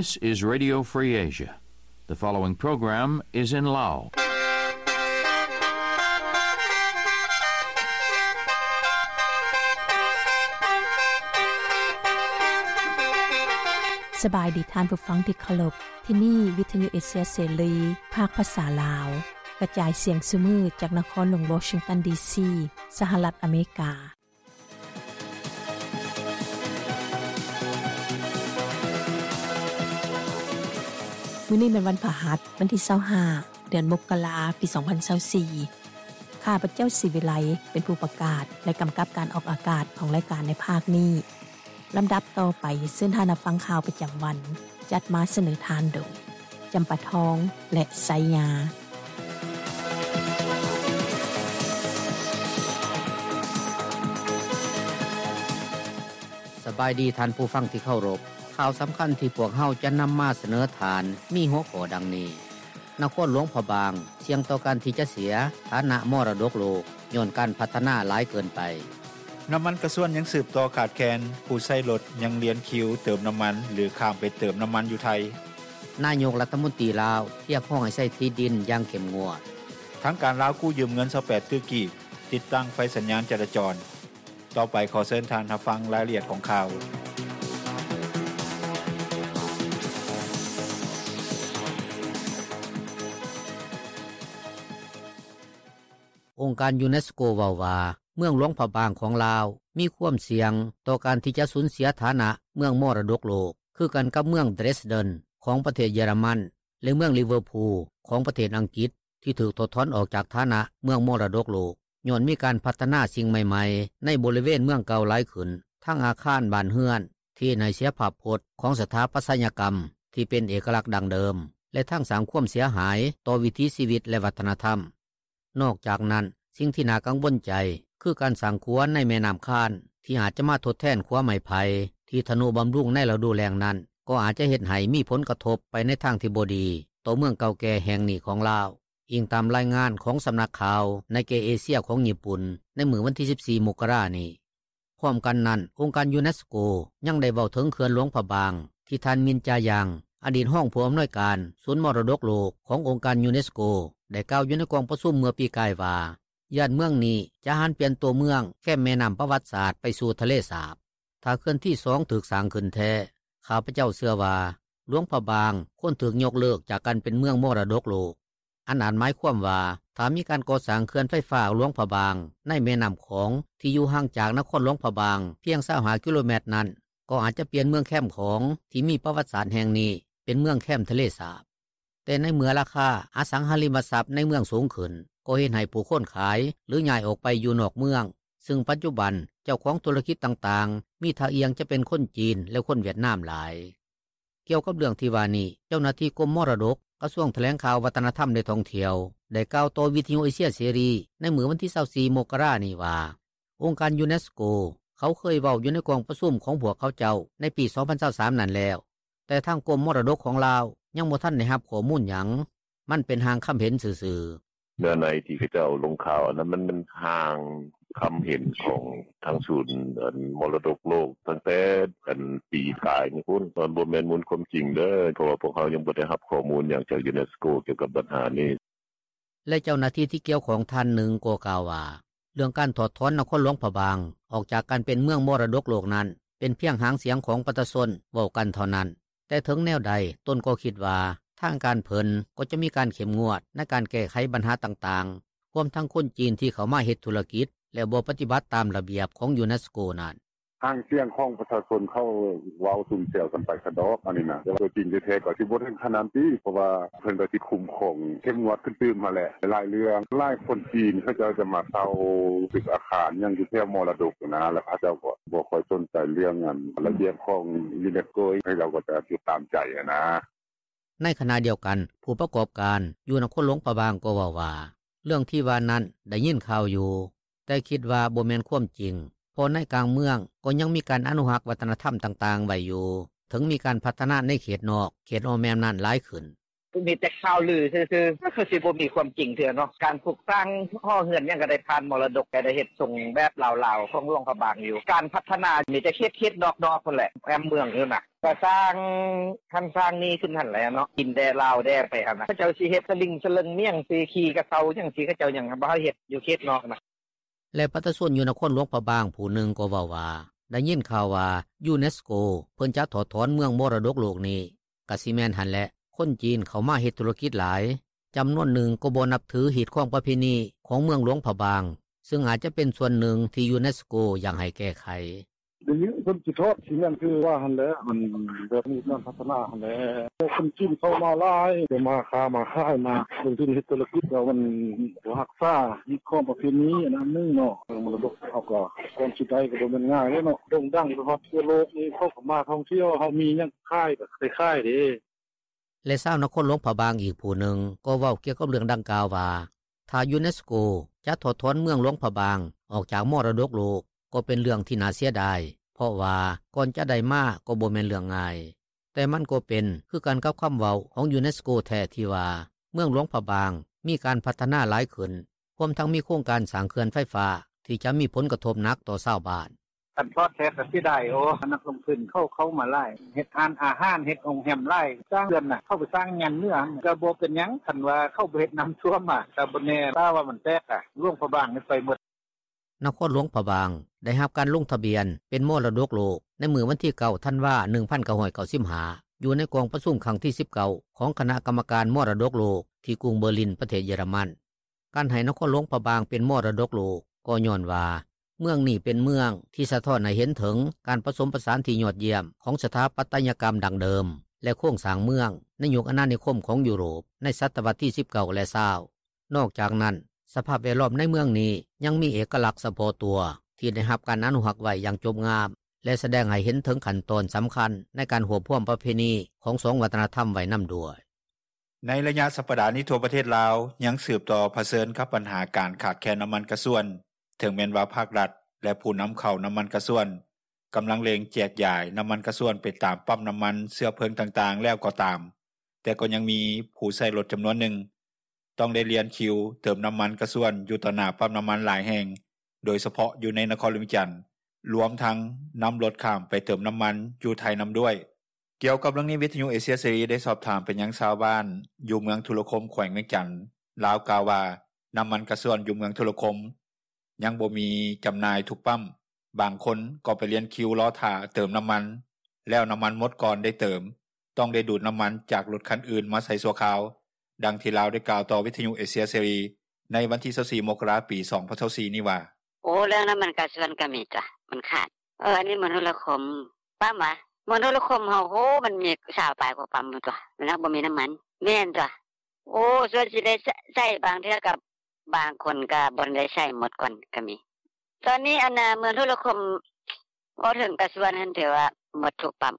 This is Radio Free Asia. The following program is in Lao. ສະບາຍດີທ່ານຜູ້ຟັງທີ່ເຄົາລົບ. ທີ່ນີ້ວິທະຍຸເອເຊຍເສລີ ພາກພາສາລາວ ກະຈາຍສຽງຊຸມື້ຈາກນະຄອນຫຼວງວໍຊິງຕັນ ດີຊີ ສະຫະລັດອາເມລິກາ. ມື້ນີ້ແມ່ນວັນພະຫັດ ວັນທີຊາວຫ້າ ເດືອນມົກກະລາ ປີສອງພັນຊາວສີ່. ຂ້າພະເຈົ້າ ສີວິໄລ ເປັນຜູ້ປະກາດ ແລະ ກຳກັບການອອກອາກາດຂອງລາຍການໃນພາກນີ້. ລຳດັບຕໍ່ໄປ ເຊີນທ່ານຮັບຟັງຂ່າວປະຈຳວັນ ຈັດມາສະເໜີທ່ານໂດຍ ຈຳປາທອງ ແລະ ໄຊຍາ. ສະບາຍດີທ່ານຜູ້ຟັງທີ່ເຄົາລົບ. ຂ່າວສຳຄັນທີ່ພວກເຮົາຈະນຳມາສະເໜີທ່ານ ມີຫົວຂໍ້ດັ່ງນີ້: ນະຄອນຫຼວງພະບາງ ສ່ຽງຕໍ່ການທີ່ຈະເສຍຖານະມໍລະດົກໂລກ ຍ້ອນການພັດທະນາຫຼາຍເກີນໄປ. ນ້ຳມັນກະຊວນຍັງສືບຕໍ່ຂາດແຄນ, ຜູ້ໃຊ້ລົດຍັງລຽນຄິວເຕີມນ້ຳມັນ ຫຼື ຂ້າມໄປເຕີມນ້ຳມັນຢູ່ໄທ. ນາຍົກລັດຖະມົນຕີລາວ ຮຽກຮ້ອງໃຫ້ໃຊ້ທີ່ດິນຢ່າງເຂັ້ມງວດ. ທາງການລາວກູ້ຢືມເງິນຊາວແປດຕື້ກີບ ຕິດຕັ້ງໄຟສັນຍານຈະລາຈອນ. ຕໍ່ໄປຂໍເຊີນທ່ານຮັບຟັງລາຍລະອຽດຂອງຂ່າວ. ອົງການຢູເນສໂກເວົ້າວ່າ ເມືອງຫຼວງພະບາງຂອງລາວ ມີຄວາມສ່ຽງຕໍ່ການທີ່ຈະສູນເສຍຖານະເມືອງມໍລະດົກໂລກ ຄືກັນກັບເມືອງເດຣສເດັນຂອງປະເທດເຢຍລະມັນ ແລະ ເມືອງລິເວີພູຂອງປະເທດອັງກິດ ທີ່ຖືກຖອດຖອນອອກຈາກຖານະເມືອງມໍລະດົກໂລກ ຍ້ອນມີການພັດທະນາສິ່ງໃໝ່ໆໃນບໍລິເວນເມືອງເກົ່າຫຼາຍຂຶ້ນ, ທັງອາຄານ, ບ້ານເຮືອນ, ທີ່ເຮັດໃຫ້ເສຍພາບພົດຂອງສະຖາປັດຕະຍະກຳທີ່ເປັນເອກະລັກດັ້ງເດີມ ແລະ ທັງສ້າງຄວາມເສຍຫາຍຕໍ່ວິຖີຊີວິດ ແລະ ວັດທະນະທຳ. ນອກຈາກນັ້ນ, ສິ່ງທີ່ໜ້າກັງວົນໃຈ ຄືການສ້າງຂົວໃນແມ່ນ້ຳຄານ ທີ່ອາດຈະມາທົດແທນຂົວໄມ້ໄຜ່ທີ່ທະນຸບຳລຸງໃນລະດູແລ້ງນັ້ນ ກໍອາດຈະເຮັດໃຫ້ມີຜົນກະທົບໄປໃນທາງທີ່ບໍ່ດີຕໍ່ເມືອງເກົ່າແກ່ແຫ່ງນີ້ຂອງລາວ, ອີງຕາມລາຍງານຂອງສຳນັກຂ່າວ Nikkei Asia ຂອງຍີ່ປຸ່ນ ໃນມື້ວັນທີສິບສີ່ ມົກກະລານີ້. ພ້ອມກັນນັ້ນ, ອົງການຢູເນສໂກຍັງໄດ້ເວົ້າເຖິງເຂື່ອນຫຼວງພະບາງ ທີ່ທ່ານ ມິນ ຈາຢັງ ອະດີດຮອງຜູ້ອຳນວຍການສູນມໍລະດົກໂລກຂອງອົງການຢູເນສໂກ ໄດ້ກ່າວຢູ່ໃນກອງປະຊຸມເມື່ອປີກາຍວ່າ ຢ້ານເມືອງນີ້ຈະຫັນປ່ຽນຕົວເມືອງແຄມແມ່ນ້ຳປະຫວັດສາດໄປສູ່ທະເລສາບ. ຖ້າເຂື່ອນທີສອງຖືກສ້າງຂຶ້ນແທ້, ຂ້າພະເຈົ້າເຊື່ອວ່າ ຫຼວງພະບາງຄວນຖືກຍົກເລີກຈາກການເປັນເມືອງມໍລະດົກໂລກ. ອັນອາດໝາຍຄວາມວ່າ ຖ້າມີການກໍ່ສ້າງເຂື່ອນໄຟຟ້າຫຼວງພະບາງໃນແມ່ນ້ຳຂອງທີ່ຢູ່ຫ່າງຈາກນະຄອນຫຼວງພະບາງພຽງຊາວຫ້າກິໂລແມັດນັ້ນ ກໍອາດຈະປ່ຽນເມືອງແຄມຂອງທີ່ມີປະຫວັດສາດແຫ່ງນີ້ເປັນເມືອງແຄມທະເລສາບ. ແຕ່ໃນເມື່ອລາຄາອະສັງຫາລິມະຊັບໃນເມືອງສູງຂຶ້ນ ກໍເຮັດໃຫ້ຜູ້ຄົນຂາຍ ຫຼື ຍ້າຍອອກໄປຢູ່ນອກເມືອງ, ຊຶ່ງປັດຈຸບັນເຈົ້າຂອງທຸລະກິດຕ່າງໆ ມີທ່າອ່ຽງຈະເປັນຄົນຈີນ ແລະ ຄົນຫວຽດນາມຫຼາຍ. ກ່ຽວກັບເລື່ອງທີ່ວ່ານີ້, ເຈົ້າໜ້າທີ່ກົມມໍລະດົກ ກະຊວງຖະແຫຼງຂ່າວ ວັດທະນະທຳ ແລະ ທ່ອງທ່ຽວ ໄດ້ກ່າວຕໍ່ວິທະຍຸເອເຊຍເສລີໃນມື້ວັນທີຊາວສີ່ ມົກກະລານີ້ວ່າ ອົງການຢູເນສໂກເຂົາເຄີຍເວົ້າຢູ່ໃນກອງປະຊຸມຂອງພວກເຂົາເຈົ້າໃນປີສອງພັນຊາວສາມນັ້ນແລ້ວ, ແຕ່ທາງກົມມໍລະດົກຂອງລາວຍັງບໍ່ທັນໄດ້ຮັບຂໍ້ມູນຫຍັງ, ມັນເປັນຮ່າງຄຳເຫັນຊື່ໆ. ເນື້ອໃນທີ່ເຂົາເຈົ້າລົງຂ່າວອັນນັ້ນ ມັນ ມັນຮ່າງຄຳເຫັນຂອງທາງສູນ ອັນ ມໍລະດົກໂລກ ຕັ້ງແຕ່ ອັນ ປີກາຍນີ້ພຸ້ນ, ມັນບໍ່ແມ່ນມູນຄວາມຈິງເດີ້ ເພາະວ່າພວກເຮົາຍັງບໍ່ໄດ້ຮັບຂໍ້ມູນຫຍັງຈາກຢູເນສໂກກ່ຽວກັບບັນຫານີ້. ແລະ ເຈົ້າໜ້າທີ່ທີ່ກ່ຽວຂ້ອງທ່ານໜຶ່ງກໍກ່າວວ່າ ເລື່ອງການຖອດຖອນນະຄອນຫຼວງພະບາງອອກຈາກການເປັນເມືອງມໍລະດົກໂລກນັ້ນ ເປັນພຽງຫາງສຽງຂອງປະຊາຊົນເວົ້າກັນເທົ່ານັ້ນ, ແຕ່ເຖິງແນວໃດຕົນກໍຄິດວ່າ ທາງການເພິ່ນກໍຈະມີການເຂັ້ມງວດໃນການແກ້ໄຂບັນຫາຕ່າງໆ ຮວມທັງຄົນຈີນທີ່ເຂົ້າມາເຮັດທຸລະກິດ ແລະ ບໍ່ປະຕິບັດຕາມລະບຽບຂອງຢູເນສໂກນັ້ນ. ຫາງສຽງຂອງປະຊາຊົນເຂົາເວົ້າຊຸມແຊວກັນໄປຊະດອກ ອັນນີ້ນະ, ແຕ່ວ່າຕົວຈິງແທ້ໆກໍຊິບໍ່ເຖິງຂະໜາດນັ້ນຕິ ເພາະວ່າເພິ່ນກໍຊິຄຸ້ມຄອງເຂັ້ມງວດຂຶ້ນຕື່ມຫັ້ນແຫຼະ. ຫຼາຍເລື່ອງ ຫຼາຍຄົນຈີນເຂົາເຈົ້າຈະມາເຊົ່າຕຶກອາຄານຫຍັງຢູ່ແຖວມໍລະດົກນະ, ແລ້ວເຂົາເຈົ້າກໍບໍ່ຄ່ອຍສົນໃຈເລື່ອງ ອັນ ລະບຽບຂອງຢູເນສໂກ, ເຂົາເຈົ້າກໍຈະຕິດຕາມໃຈຫັ້ນນະ. ໃນຂະນະດຽວກັນ, ຜູ້ປະກອບການຢູ່ນະຄອນຫຼວງພະບາງກໍເວົ້າວ່າ ເລື່ອງທີ່ວ່ານັ້ນໄດ້ຍິນຂ່າວຢູ່, ແຕ່ຄິດວ່າບໍ່ແມ່ນຄວາມຈິງ, ເພາະໃນກາງເມືອງກໍຍັງມີການອະນຸຮັກວັດທະນະທຳຕ່າງໆໄວ້ຢູ່, ເຖິງມີການພັດທະນາໃນເຂດນອກ, ເຂດອ້ອມແມ່ນ້ຳນັ້ນຫຼາຍຂຶ້ນ. ມີແຕ່ຂ່າວລືຊື່ໆ ຄືຊິບໍ່ມີຄວາມຈິງເທື່ອເນາະ. ການປຸກສ້າງຫໍເຮືອນຫຍັງ ກໍໄດ້ຜ່ານມໍລະດົກ ກໍໄດ້ເຮັດຊົງແບບລາວໆ ຂອງຫຼວງພະບາງຢູ່. ການພັດທະນາມີແຕ່ເຂດໆ ນອກໆ ພຸ້ນແຫຼະ ແອ້ມເມືອງຢູ່ນະ. ກໍສ້າງຫັ້ນສ້າງນີ້ຂຶ້ນຫັ້ນແຫຼະເນາະ ຈີນແດ່ລາວແດ່ໄປຫັ້ນນະ. ເຂົາເຈົ້າຊິເຮັດສະລິງສະເຫຼີ່ງ ມີຫຍັງຊິຂີ່ກະເຊົາຫຍັງຊິ ເຂົາເຈົ້າຍັງບໍ່ໃຫ້ເຮັດຢູ່ເຂດນອກນະ. ແລະປະຊາຊົນຢູ່ນະຄອນຫຼວງພະບາງຜູ້ໜຶ່ງກໍເວົ້າວ່າ ໄດ້ຍິນຂ່າວວ່າ UNESCO ເພິ່ນຈະຖອດຖອນເມືອງມໍລະດົກໂລກນີ້ ກະຊິແມ່ນຫັ້ນແຫຼະ. ຄົນຈີນເຂົ້າມາເຮັດທຸລະກິດຫຼາຍ, ຈຳນວນໜຶ່ງກໍບໍ່ນັບຖືຮີດຄອງປະເພນີຂອງເມືອງຫຼວງພະບາງ ຊຶ່ງອາດຈະເປັນສ່ວນໜຶ່ງທີ່ UNESCO ຢາກໃຫ້ແກ້ໄຂ. ໄດ້ຍິນເພິ່ນຊິຖອດ ຊິແມ່ນຄືວ່າຫັ້ນແຫຼະ ມັນແບບມີການພັດທະນາຫັ້ນແຫຼະ. ຄົນຈີນເຂົ້າມາຫຼາຍ ໄດ້ມາຄ້າມາຂາຍ ມາລົງທຶນເຮັດທຸລະກິດ ແລ້ວມັນບໍ່ຮັກສາຮີດຄອງປະເພນີ ອັນນັ້ນໜຶ່ງເນາະ. ເລື່ອງມໍລະດົກເຮົາກໍ ກ່ອນຊິໄດ້ກໍບໍ່ແມ່ນງ່າຍເດ້ເນາະ ໂດ່ງດັງໄປຮອດທົ່ວໂລກນີ້ ເຂົາກໍມາທ່ອງທ່ຽວ ເຮົາມີຫຍັງຂາຍກໍໄດ້ຂາຍເດ້. ແລະຊາວນະຄອນຫຼວງພະບາງອີກຜູ້ໜຶ່ງ ກໍເວົ້າກ່ຽວກັບເລື່ອງດັ່ງກ່າວວ່າ ຖ້າ UNESCO ຈະຖອດຖອນເມືອງຫຼວງພະບາງອອກຈາກມໍລະດົກໂລກ ກໍເປັນເລື່ອງທີ່ໜ້າເສຍດາຍ ເພາະວ່າກ່ອນຈະໄດ້ມາກໍບໍ່ແມ່ນເລື່ອງງ່າຍ. ແຕ່ມັນກໍເປັນຄືກັນກັບຄຳເວົ້າຂອງ UNESCO ແທ້ທີ່ວ່າ ເມືອງຫຼວງພະບາງມີການພັດທະນາຫຼາຍຂຶ້ນ ຮວມທັງມີໂຄງການສ້າງເຂື່ອນໄຟຟ້າ ທີ່ຈະມີຜົນກະທົບໜັກຕໍ່ຊາວບ້ານ. ຄັນຖອດແທ້ກໍເສຍດາຍ ໂອ້ ນັກລົງທຶນເຂົາເຂົ້າມາຫຼາຍ ເຮັດຮ້ານອາຫານ ເຮັດໂຮງແຮມຫຼາຍ ສ້າງເຂື່ອນນະ ເຂົາໄປສ້າງຍານເໜືອ ກໍບໍ່ເປັນຫຍັງ ຄັນວ່າເຂົາບໍ່ເຮັດນ້ຳຖ້ວມ ກໍບໍ່ແນ່ ຖ້າວ່າມັນແຕກ ຫຼວງພະບາງນີ້ໄປໝົດ. ນະຄອນຫຼວງພະບາງໄດ້ຮັບການລົງທະບຽນເປັນມໍລະດົກໂລກ ໃນມື້ວັນທີ ເກົ້າ ທັນວາ ໜຶ່ງພັນເກົ້າຮ້ອຍເກົ້າສິບຫ້າ ຢູ່ໃນກອງປະຊຸມຄັ້ງທີ ສິບເກົ້າ ຂອງຄະນະກຳມະການມໍລະດົກໂລກ ທີ່ກຸງເບີລິນ ປະເທດເຢຍລະມັນ. ການໃຫ້ນະຄອນຫຼວງພະບາງເປັນມໍລະດົກໂລກ ກໍຍ້ອນວ່າ ເມືອງນີ້ເປັນເມືອງທີ່ສະທ້ອນໃຫ້ເຫັນເຖິງການປະສົມປະສານທີ່ຍອດຢ້ຽມຂອງສະຖາປັດຕະຍະກຳດັ້ງເດີມ ແລະໂຄງສ້າງເມືອງໃນຍຸກອານານິຄົມຂອງຢູໂຣບ ໃນສະຕະວັດທີ ສິບເກົ້າ ແລະ ຊາວ. ນອກຈາກນັ້ນ ສະພາບແວດລ້ອມໃນເມືອງນີ້ຍັງມີເອກະລັກສະເພາະຕົວ ທີ່ໄດ້ຮັບການອະນຸຮັກໄວ້ຢ່າງຈົບງາມ ແລະສະແດງໃຫ້ເຫັນເຖິງຂັ້ນຕອນສຳຄັນໃນການຮວບຮວມປະເພນີຂອງສອງວັດທະນະທຳໄວ້ນຳດ້ວຍ. ໃນໄລຍະສັບປະດານີ້ ທົ່ວປະເທດລາວຍັງສືບຕໍ່ຜະເຊີນກັບບັນຫາການຂາດແຄນນ້ຳມັນກະຊວນ. ເຖິງແມ່ນວ່າພາກລັດ ແລະຜູ້ນຳເຂົ້ານ້ຳມັນກະຊວນ ກຳລັງເລັ່ງແຈກຢາຍນ້ຳມັນກະຊວນໄປຕາມປ້ຳນ້ຳມັນເຊື້ອເພີງຕ່າງໆແລ້ວກໍຕາມ, ແຕ່ກໍຍັງມີຜູ້ໃຊ້ລົດຈຳນວນໜຶ່ງ ຕ້ອງໄດ້ລຽນຄິວເຕີມນ້ຳມັນກະຊວນຢູ່ຕໍ່ໜ້າປ້ຳນ້ຳມັນຫຼາຍແຫ່ງ ໂດຍສະເພາະຢູ່ໃນນະຄອນຫຼວງວຽງຈັນ, ລວມທັງນຳລົດຂ້າມໄປເຕີມນ້ຳມັນຢູ່ໄທນຳດ້ວຍ. ກ່ຽວກັບເລື່ອງນີ້ ວິທະຍຸເອເຊຍເສລີໄດ້ສອບຖາມໄປຍັງຊາວບ້ານຢູ່ເມືອງທຸລະຄົມ ແຂວງວຽງຈັນ. ລາວກ່າວວ່າ ນ້ຳມັນກະຊວນຢູ່ເມືອງທຸລະຄົມຍັງບໍ່ມີຈຳໜ່າຍທຸກປ້ຳ, ບາງຄົນກໍໄປລຽນຄິວລໍຖ້າເຕີມນ້ຳມັນ ແລ້ວນ້ຳມັນໝົດກ່ອນໄດ້ເຕີມ, ຕ້ອງໄດ້ດູດນ້ຳມັນຈາກລົດຄັນອື່ນມາໃສ່ຊົ່ວຄາວ. ດັ່ງທີ່ລາວໄດ້ກ່າວຕໍ່ວິທະຍຸເອເຊຍເສລີໃນວັນທີ ຊາວສີ່ ມົກກະລາ ປີ ສອງພັນຊາວສີ່ນີ້ວ່າ: ໂອ້ ເລື່ອງນ້ຳມັນກະຊວນກໍມີຕົວະ ມັນຂາດ. ເອີ ອັນນີ້ເມືອງທຸລະຄົມ ປ້ຳຫວາ? ເມືອງທຸລະຄົມເຮົາ ໂອ້ ມັນມີຊາວປາຍກວ່າປ້ຳພຸ້ນຕົວະ ມັນຫາກບໍ່ມີນ້ຳມັນ. ແມ່ນຕົວະ. ໂອ້ ສ່ວນຊິໄດ້ໃຊ້ ບາງເທື່ອກໍບາງຄົນກໍບໍ່ໄດ້ໃຊ້ໝົດກ່ອນກໍມີ. ຕອນນີ້ອັນນາ ເມືອງທຸລະຄົມ ເວົ້າເຖິງກະຊວນຫັ້ນ ຖືວ່າໝົດທຸກປ້ຳ.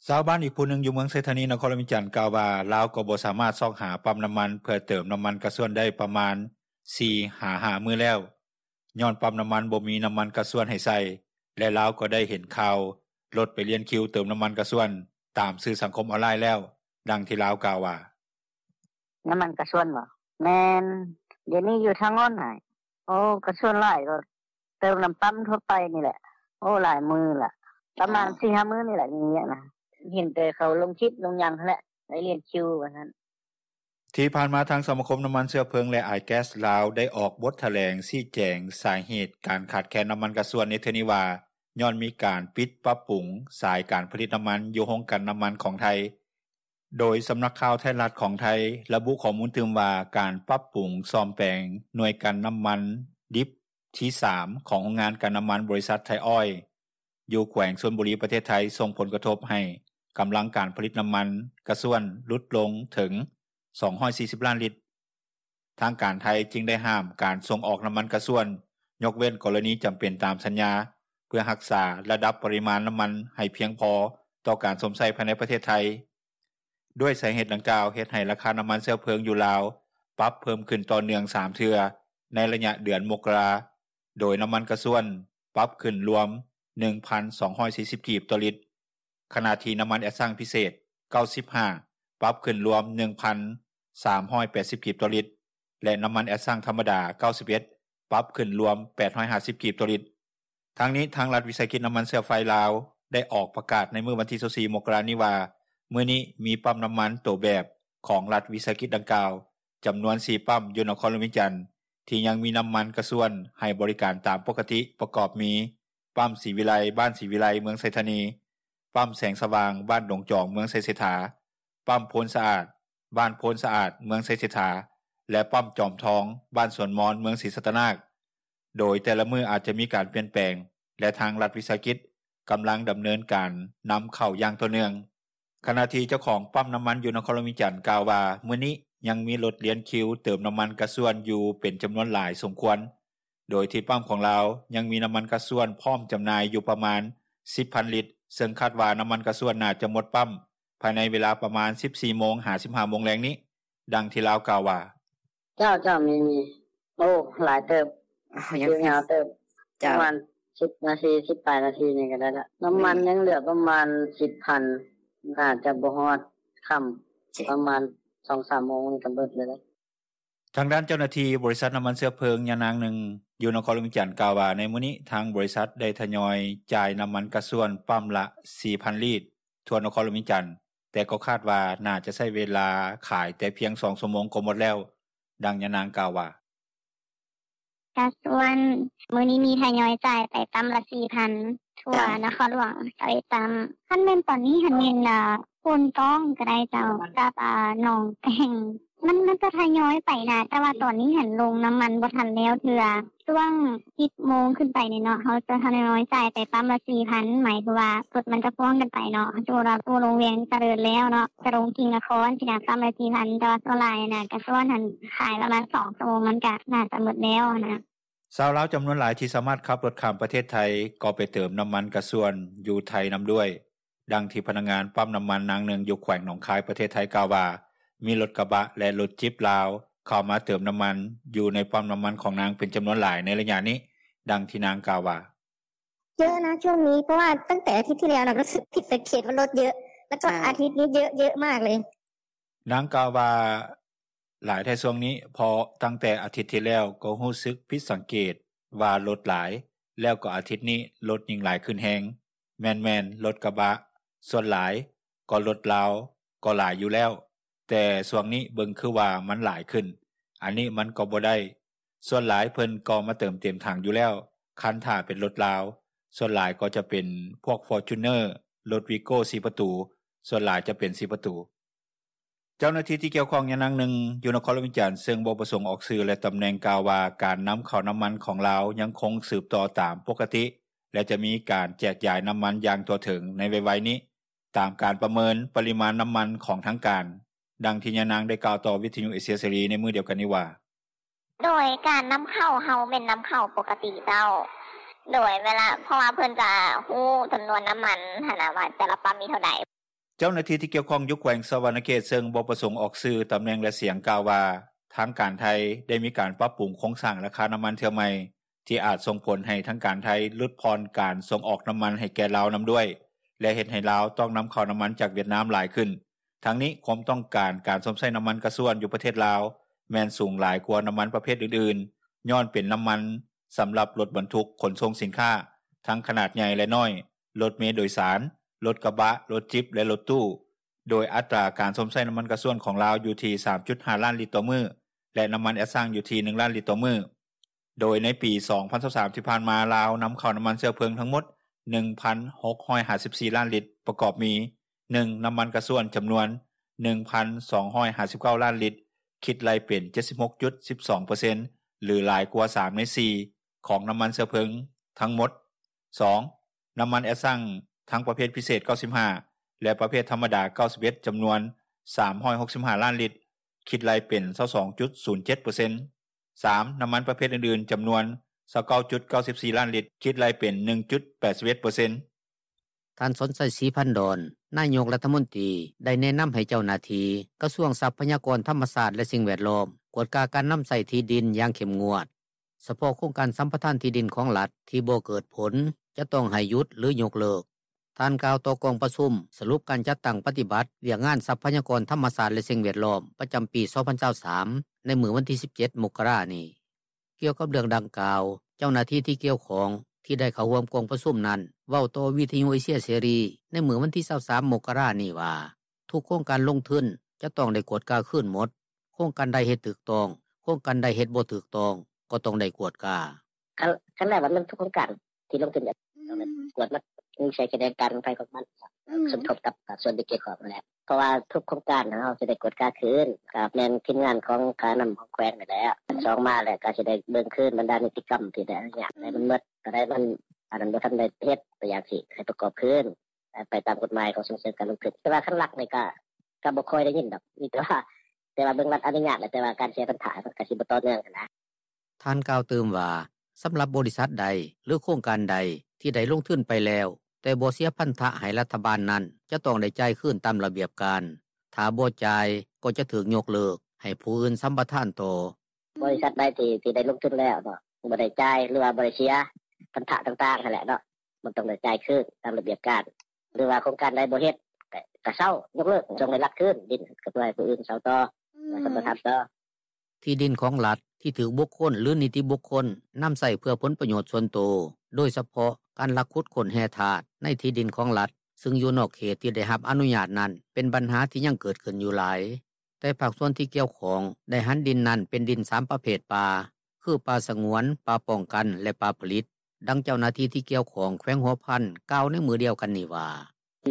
ຊາວບ້ານອີກຜູ້ໜຶ່ງຢູ່ເມືອງໄຊທານີ ນະຄອນຫຼວງວຽງຈັນ ກ່າວວ່າ ລາວກໍບໍ່ສາມາດຊອກຫາປ້ຳນ້ຳມັນເພື່ອເຕີມນ້ຳມັນກະຊວນໄດ້ປະມານ ສີ່ຫາຫ້າ ມື້ແລ້ວ ຍ້ອນປ້ຳນ້ຳມັນບໍ່ມີນ້ຳມັນກະຊວນໃຫ້ໃສ່ ແລະ ລາວກໍໄດ້ເຫັນຂ່າວລົດໄປລຽນຄິວເຕີມນ້ຳມັນກະຊວນຕາມສື່ສັງຄົມອອນລາຍແລ້ວ. ດັ່ງທີ່ລາວກ່າວວ່າ: ນ້ຳມັນກະຊວນບໍ? ແມ່ນ ດຽວນີ້ຢູ່ທາງໂນ້ນຫັ້ນ ໂອ້ ກະຊວນຫຼາຍ ກໍເຕີມນ້ຳປ້ຳທົ່ວໄປນີ້ແຫຼະ. ໂອ້ ຫຼາຍມື້ລະ ປະມານ ເອີ ສີ່ຫ້າມື້ນີ້ແຫຼະ ມີວຽກນະ. ເຫັນແຕ່ເຂົາລົງຄລິບລົງຫຍັງຫັ້ນແຫຼະ ໄປລຽນຄິວວ່າຊັ້ນ. ທີ່ຜ່ານມາ ທາງສະມາຄົມນ້ຳມັນເຊື້ອເພີງ ແລະ ອາຍແກັສລາວ ໄດ້ອອກບົດຖະແຫຼງຊີ້ແຈງສາເຫດການຂາດແຄນນ້ຳມັນກະຊວນໃນເທື່ອນີ້ວ່າ ຍ້ອນມີການປິດປັບປຸງສາຍການຜະລິດນ້ຳມັນຢູ່ໂຮງກັ່ນນ້ຳມັນຂອງໄທ. ໂດຍສຳນັກຂ່າວໄທຍລັດຂອງໄທ ລະບຸຂໍ້ມູນຕື່ມວ່າ ການປັບປຸງສ້ອມແປງໜ່ວຍກັ່ນນ້ຳມັນດິບທີ ສາມ ຂອງໂຮງງານກັ່ນນ້ຳມັນບໍລິສັດໄທອອຍ ຢູ່ແຂວງຊົນບູຣີ ປະເທດໄທ ສົ່ງຜົນກະທົບໃຫ້ກຳລັງການຜະລິດນ້ຳມັນກະຊວນຫຼຸດລົງເຖິງ ສອງຮ້ອຍສີ່ສິບລ້ານລິດ. ທາງການໄທຈຶ່ງໄດ້ຫ້າມການສົ່ງອອກນ້ຳມັນກະຊວນ ຍົກເວັ້ນກໍລະນີຈຳເປັນຕາມສັນຍາ ເພື່ອຮັກສາລະດັບປະລິມານນ້ຳມັນໃຫ້ພຽງພໍຕໍ່ການຊົມໃຊ້ພາຍໃນປະເທດໄທ. ດ້ວຍສາເຫດດັ່ງກ່າວ ເຮັດໃຫ້ລາຄານ້ຳມັນເຊື້ອເພີງຢູ່ລາວ ປັບເພີ່ມຂຶ້ນຕໍ່ເນື່ອງ ສາມເທື່ອ ໃນໄລຍະເດືອນມົກກະລາ, ໂດຍນ້ຳມັນກະຊວນປັບຂຶ້ນລວມ ໜຶ່ງພັນສອງຮ້ອຍສີ່ສິບ ກີບຕໍ່ລິດ, ຂະນະທີ່ນ້ຳມັນແອັດຊັງພິເສດ ເກົ້າສິບຫ້າ ປັບຂຶ້ນລວມ ໜຶ່ງພັນສາມຮ້ອຍແປດສິບກີບຕໍ່ລິດ ແລະ ນໍ້າມັນແອັດຊັງທຳມະດາ ເກົ້າສິບເອັດ ປັບຂຶ້ນລວມ ແປດຮ້ອຍຫ້າສິບກີບຕໍ່ລິດ. ທັງນີ້ ທາງລັດວິສາຫະກິດນໍ້າມັນເຊື້ອໄຟລາວ ໄດ້ອອກປະກາດໃນມື້ວັນທີ ຊາວສີ່ ມົກກະລານີ້ວ່າ ມື້ນີ້ມີປ້ຳນໍ້າມັນໂຕແບບຂອງລັດວິສາຫະກິດດັ່ງກ່າວ ຈຳນວນ ສີ່ ປ້ຳຢູ່ນະຄອນຫຼວງວຽງຈັນ ທີ່ຍັງມີນໍ້າມັນກະຊວນໃຫ້ບໍລິການຕາມປົກກະຕິ ປະກອບມີ ປ້ຳສີວິໄລ ບ້ານສີວິໄລ ເມືອງໄຊທານີ, ປ້ຳແສງສະຫວ່າງ ບ້ານດົງຈອງ ເມືອງໄຊເສດຖາ, ປ້ຳໂພນສະອາດ ບ້ານໂພນສະອາດ ເມືອງໄຊເສດຖາ ແລະ ປ້ຳຈອມທອງ ບ້ານສວນມອນ ເມືອງສີສັດຕະນາກ. ໂດຍແຕ່ລະມື້ອາດຈະມີການປ່ຽນແປງ ແລະ ທາງລັດວິສາຫະກິດກຳລັງດຳເນີນການນຳເຂົ້າຢ່າງຕໍ່ເນື່ອງ. ຂະນະທີ່ເຈົ້າຂອງປ້ຳນໍ້າມັນຢູ່ນະຄອນຫຼວງວຽງຈັນກ່າວວ່າ ມື້ນີ້ຍັງມີລົດລຽນຄິວເຕີມນໍ້າມັນກະຊວນຢູ່ເປັນຈຳນວນຫຼາຍສົມຄວນ, ໂດຍທີ່ປ້ຳຂອງລາວຍັງມີນໍ້າມັນກະຊວນພ້ອມຈຳໜ່າຍຢູ່ປະມານ ສິບພັນລິດ ເຊິ່ງຄາດວ່ານໍ້າມັນກະຊວນໜ້າຈະໝົດປ້ຳພາຍໃນເວລາປະມານ ສິບສີ່ໂມງ ຫາ ສິບຫ້າໂມງແລງນີ້. ດັ່ງທີ່ລາວກ່າວວ່າ: ເຈົ້າ ເຈົ້າ ມີ ມີ ໂອ້ ຫຼາຍເຕີບ ຍາວເຕີບ ປະມານ ສິບນາທີ ສິບປາຍນາທີນີ້ກໍໄດ້ລະ ນໍ້າມັນຍັງເຫຼືອປະມານ ສິບພັນ ໜ້າຈະບໍ່ຮອດຄ່ຳ ປະມານ ສອງສາມໂມງນີ້ກໍເບິດເລີຍ. ທາງດ້ານເຈົ້າໜ້າທີ່ບໍລິສັດນໍ້າມັນເຊື້ອເພີງຍານາງໜຶ່ງ ຢູ່ນະຄອນຫຼວງວຽງຈັນກ່າວວ່າ ໃນມື້ນີ້ທາງບໍລິສັດໄດ້ທະຍອຍຈ່າຍນໍ້າມັນກະຊວນປ້ຳລະ ສີ່ພັນລີດ ທົ່ວນະຄອນຫຼວງວຽງຈັນ, ແຕ່ກໍຄາດວ່າໜ້າຈະໃຊ້ເວລາຂາຍແຕ່ພຽງສອງຊົ່ວໂມງກໍໝົດແລ້ວ. ດັ່ງຍານາງກ່າວວ່າ: ກະຊວນມື້ນີ້ມີທະຍອຍຈ່າຍໄປປ້ຳລະ ສີ່ພັນ ທົ່ວນະຄອນຫຼວງຊາວເອັດປ້ຳ. ຄັນແມ່ນຕອນນີ້ຫັ້ນແມ່ນ ໂພນຕ້ອງກໍໄດ້ເຈົ້າ ກັບໜອງແກງ ມັນ ມັນກໍທະຍອຍໄປນະ ແຕ່ວ່າຕອນນີ້ຫັ້ນລົງນໍ້າມັນບໍ່ທັນແລ້ວເທື່ອ. ຊ່ວງ ສິບໂມງຂຶ້ນໄປນີ້ເນາະ ເຮົາຈະທະຍອຍຈ່າຍໄປປ້ຳລະ ສີ່ພັນ ໝາຍເຖິງວ່າລົດມັນຈະພ່ວງກັນໄປເນາະ. ສົມມຸດວ່າຜູ້ລົງວຽງຈະເລີນແລ້ວເນາະ ຈະລົງກິ່ງນະຄອນຊີ້ນະ ປ້ຳລະ ສີ່ພັນ ແຕ່ວ່າສ່ວນຫຼາຍນະ ກະຊວນຫັ້ນຂາຍປະມານສອງຊົ່ວໂມງ ມັນກະໜ້າຈະໝົດແລ້ວນະ. ຊາວລາວຈຳນວນຫຼາຍທີ່ສາມາດຂັບລົດຂ້າມປະເທດໄທ ກໍໄປເຕີມນໍ້າມັນກະຊວນຢູ່ໄທນຳດ້ວຍ. ດັ່ງທີ່ພະນັກງານປ້ຳນໍ້າມັນນາງໜຶ່ງຢູ່ແຂວງໜອງຄາຍ ປະເທດໄທກ່າວວ່າ ມີລົດກະບະ ແລະ ລົດຈິບລາວເຂົ້າມາເຕີມນໍ້າມັນຢູ່ໃນປ້ຳນໍ້າມັນຂອງນາງເປັນຈຳນວນຫຼາຍໃນໄລຍະນີ້. ດັ່ງທີ່ນາງກ່າວວ່າ: ເຍອະນະຊ່ວງນີ້ ເພາະວ່າຕັ້ງແຕ່ອາທິດທີ່ແລ້ວນະ ກໍຮູ້ສຶກຜິດສັງເກດວ່າລົດເຍອະ ແລ້ວກໍອາທິດນີ້ເຍອະ ເຍອະມາກເລີຍ. ນາງກ່າວວ່າ ຫຼາຍແທ້ຊ່ວງນີ້ ເພາະຕັ້ງແຕ່ອາທິດທີ່ແລ້ວກໍຮູ້ສຶກຜິດສັງເກດວ່າລົດຫຼາຍ ແລ້ວກໍອາທິດນີ້ລົດຍິ່ງຫຼາຍຂຶ້ນແຮງ. ແມ່ນໆ ລົດກະບະສ່ວນຫຼາຍ ກໍລົດລາວກໍຫຼາຍຢູ່ແລ້ວ ແຕ່ຊ່ວງນີ້ເບິ່ງຄືວ່າມັນຫຼາຍຂຶ້ນ ອັນນີ້ມັນກໍບໍ່ໄດ້. ສ່ວນຫຼາຍເພິ່ນກໍມາເຕີມເຕັມຖັງຢູ່ແລ້ວ ຄັນຖ້າເປັນລົດລາວ ສ່ວນຫຼາຍກໍຈະເປັນພວກ Fortuner ລົດ Vigo ສີ່ປະຕູ ສ່ວນຫຼາຍຈະເປັນສີ່ປະຕູ. ເຈົ້າໜ້າທີ່ທີ່ກ່ຽວຂ້ອງຍານາງໜຶ່ງຢູ່ນະຄອນຫຼວງວຽງຈັນ ເຊິ່ງບໍ່ປະສົງອອກຊື່ ແລະ ຕຳແໜ່ງ ກ່າວວ່າ ການນຳເຂົ້ານໍ້າມັນຂອງລາວຍັງຄົງສືບຕໍ່ຕາມປົກກະຕິ ແລະ ຈະມີການແຈກຢາຍນໍ້າມັນຢ່າງທົ່ວເຖິງໃນໄວໆນີ້ ຕາມການປະເມີນປະລິມານນໍ້າມັນຂອງທາງການ. ດັ່ງທີ່ຍານາງໄດ້ກ່າວຕໍ່ວິທະຍຸເອເຊຍເສລີໃນມື້ດຽວກັນນີ້ວ່າ: ໂດຍການນຳເຂົ້າເຮົາແມ່ນນຳເຂົ້າປົກກະຕິເຈົ້າ ໂດຍເວລາ ເພາະວ່າເພິ່ນຈະຮູ້ຈຳນວນນໍ້າມັນຫັ້ນນະ ວ່າແຕ່ລະປ້ຳມີເທົ່າໃດ. ເຈົ້າໜ້າທີ່ທີ່ກ່ຽວຂ້ອງຢູ່ແຂວງສະຫວັນນະເຂດ ເຊິ່ງບໍ່ປະສົງອອກຊື່, ຕຳແໜ່ງ ແລະ ສຽງ ກ່າວວ່າ ທາງການໄທໄດ້ມີການປັບປຸງໂຄງສ້າງລາຄານໍ້າມັນເທື່ອໃໝ່ ທີ່ອາດສົ່ງຜົນໃຫ້ທາງການໄທຫຼຸດຜ່ອນການສົ່ງອອກນໍ້າມັນໃຫ້ແກ່ລາວນຳດ້ວຍ ແລະ ເຮັດໃຫ້ລາວຕ້ອງນຳເຂົ້ານໍ້າມັນຈາກຫວຽດນາມຫຼາຍຂຶ້ນ. ທັງນີ້ ຄວາມຕ້ອງການການຊົມໃຊ້ນໍ້າມັນກະຊວນຢູ່ປະເທດລາວ ແມ່ນສູງຫຼາຍກວ່ານໍ້າມັນປະເພດອື່ນໆ ຍ້ອນເປັນນໍ້າມັນສຳລັບລົດບັນທຸກຂົນສົ່ງສິນຄ້າ ທັງຂະໜາດໃຫຍ່ ແລະ ນ້ອຍ, ລົດເມໂດຍສານ, ລົດກະບະ, ລົດຈິບ ແລະ ລົດຕູ້. ໂດຍອັດຕາການຊົມໃຊ້ນໍ້າມັນກະຊວນຂອງລາວຢູ່ທີ່ ສາມຈຸດຫ້າລ້ານລິດຕໍ່ມື້ ແລະ ນໍ້າມັນແອັດຊັງຢູ່ທີ່ ໜຶ່ງລ້ານລິດຕໍ່ມື້. ໂດຍໃນປີສອງພັນຊາວສາມທີ່ຜ່ານມາ ລາວນຳເຂົ້ານໍ້າມັນເຊື້ອເພີງທັງໝົດ ໜຶ່ງພັນຫົກຮ້ອຍຫ້າສິບສີ່ລ້ານລິດ ປະກອບມີ ໜຶ່ງ ນໍ້າມັນກະຊວນຈຳນວນ ໜຶ່ງພັນສອງຮ້ອຍຫ້າສິບເກົ້າລ້ານລິດ ຄິດໄລ່ເປັນ ເຈັດສິບຫົກຈຸດສິບສອງເປີເຊັນ ຫຼື ຫຼາຍກວ່າສາມໃນສີ່ຂອງນໍ້າມັນເຊື້ອເພີງທັງໝົດ, ສອງ ນໍ້າມັນແອັດຊັງທັງປະເພດພິເສດ ເກົ້າສິບຫ້າ ແລະ ປະເພດທຳມະດາ ເກົ້າສິບເອັດ ຈຳນວນ ສາມຮ້ອຍຫົກສິບຫ້າລ້ານລິດ ຄິດໄລ່ເປັນ ຊາວສອງຈຸດສູນເຈັດເປີເຊັນ, ສາມ ນໍ້າມັນປະເພດອື່ນໆ ຈຳນວນ ຊາວເກົ້າຈຸດເກົ້າສິບສີ່ລ້ານລິດ ຄິດໄລ່ເປັນ ໜຶ່ງຈຸດແປດສິບເອັດເປີເຊັນ. ທ່ານ ສອນໄຊ ສີພັນດອນ ນາຍົກລັດຖະມົນຕີ ໄດ້ແນະນຳໃຫ້ເຈົ້າໜ້າທີ່ກະຊວງຊັບພະຍາກອນທຳມະຊາດ ແລະ ສິ່ງແວດລ້ອມ ກວດກາການນຳໃຊ້ທີ່ດິນຢ່າງເຂັ້ມງວດ. ສະເພາະໂຄງການສຳປະທານທີ່ດິນຂອງລັດທີ່ບໍ່ເກີດຜົນ ຈະຕ້ອງໃຫ້ຢຸດ ຫຼື ຍົກເລີກ. ທ່ານກ່າວຕໍ່ກອງປະຊຸມ ສະຫຼຸບການຈັດຕັ້ງປະຕິບັດວຽກງານຊັບພະຍາກອນທຳມະຊາດ ແລະ ສິ່ງແວດລ້ອມ ປະຈຳປີ 2023 ໃນມື້ວັນທີ 17 ມົກກະລານີ້. ກ່ຽວກັບເລື່ອງດັ່ງກ່າວ ເຈົ້າໜ້າທີ່ທີ່ກ່ຽວຂ້ອງ ທີ່ໄດ້ເຂົ້າຮ່ວມກອງປະຊຸມນັ້ນ ເວົ້າຕໍ່ວິທຍຸເອເຊຍເສລີ ໃນມື້ວັນທີ 23 ມົກກະລານີ້ວ່າ ທຸກໂຄງການລົງທຶນ ຈະຕ້ອງໄດ້ກວດກາຄືນໝົດ. ໂຄງການໃດເຮັດຖືກຕ້ອງ, ໂຄງການໃດເຮັດບໍ່ຖືກຕ້ອງ ກໍຕ້ອງໄດ້ກວດກາ. ຄັນແລ້ວວ່າມັນທຸກໂຄງການທີ່ລົງທຶນ ຕ້ອງໄດ້ກວດໝົດ ມີໃສ່ຂະແໜງການຂອງໃຜຂອງມັນ ສົມທົບກັບພາກສ່ວນທີ່ກ່ຽວຂ້ອງນັ້ນແຫຼະ. ເພາະວ່າທຸກໂຄງການເຮົາຈະໄດ້ກວດກາຄືນ ກໍແມ່ນທີມງານຂອງຄ່ານ້ຳຂອງແຂວງນີ້ແຫຼະ. ສອງມາແລ້ວກໍຊິໄດ້ເບິ່ງຄືນບັນດານິຕິກຳທີ່ໄດ້ອະນຸຍາດໃຫ້ມັນໝົດ ໂຕໃດມັນອັນນັ້ນບໍ່ທັນໄດ້ເຮັດ ຕົວຢ່າງຊິໃຫ້ປະກອບຄືນ ໄປຕາມກົດໝາຍຂອງສົ່ງເສີມການລົງທຶນ. ແຕ່ວ່າຄັນລັກນີ້ກໍ ກໍບໍ່ຄ່ອຍໄດ້ຍິນດອກ ມີແຕ່ວ່າ ແຕ່ວ່າເບິ່ງລັດອະນຸຍາດແຫຼະ ແຕ່ວ່າການເສຍພັນທະມັນກໍຊິບໍ່ຕໍ່ເນື່ອງຫັ້ນນະ. ທ່ານກ່າວຕື່ມວ່າ ສຳລັບບໍລິສັດໃດ ຫຼື ໂຄງການໃດ ທີ່ໄດ້ລົງທຶນໄປແລ້ວ ແຕ່ບໍ່ເສຍພັນທະໃຫ້ລັດຖະບານນັ້ນ ຈະຕ້ອງໄດ້ຈ່າຍຄືນຕາມລະບຽບການ. ຖ້າບໍ່ຈ່າຍ ກໍຈະຖືກຍົກເລີກ ໃຫ້ຜູ້ອື່ນສຳປະທານຕໍ່. ບໍລິສັດໃດທີ່ ທີ່ໄດ້ລົງທຶນແລ້ວເນາະ ບໍ່ໄດ້ຈ່າຍ ຫຼືວ່າບໍ່ໄດ້ເສຍພັນທະຕ່າງໆຫັ້ນແຫຼະເນາະ ມັນຕ້ອງໄດ້ຈ່າຍຄືນຕາມລະບຽບການ ຫຼືວ່າໂຄງການໃດບໍ່ເຮັດ ກໍ ກໍເຊົາ ຍົກເລີກ ສົ່ງໃຫ້ລັດຄືນດິນ ກໍເພື່ອໃຫ້ຜູ້ອື່ນເຊົາຕໍ່ ແລະ ສຳປະທານຕໍ່. ທີ່ດິນຂອງລັດ ທີ່ຖືກບຸກຄົນ ຫຼື ນິຕິບຸກຄົນ ນຳໃຊ້ເພື່ອຜົນປະໂຫຍດສ່ວນໂຕ ໂດຍສະເພາະການລັກຂຸດຄົ້ນແຮ່ທາດໃນທີ່ດິນຂອງລັດ ຊຶ່ງຢູ່ນອກເຂດທີ່ໄດ້ຮັບອະນຸຍາດນັ້ນ ເປັນບັນຫາທີ່ຍັງເກີດຂຶ້ນຢູ່ຫຼາຍ. ແຕ່ພາກສ່ວນທີ່ກ່ຽວຂ້ອງ ໄດ້ຫັນດິນນັ້ນເປັນດິນສາມປະເພດປ່າ ຄື ປ່າສະຫງວນ, ປ່າປ້ອງກັນ ແລະ ປ່າຜະລິດ. ດັ່ງເຈົ້າໜ້າທີ່ທີ່ກ່ຽວຂ້ອງແຂວງຫົວພັນ ກ່າວໃນມື້ດຽວກັນນີ້ວ່າ: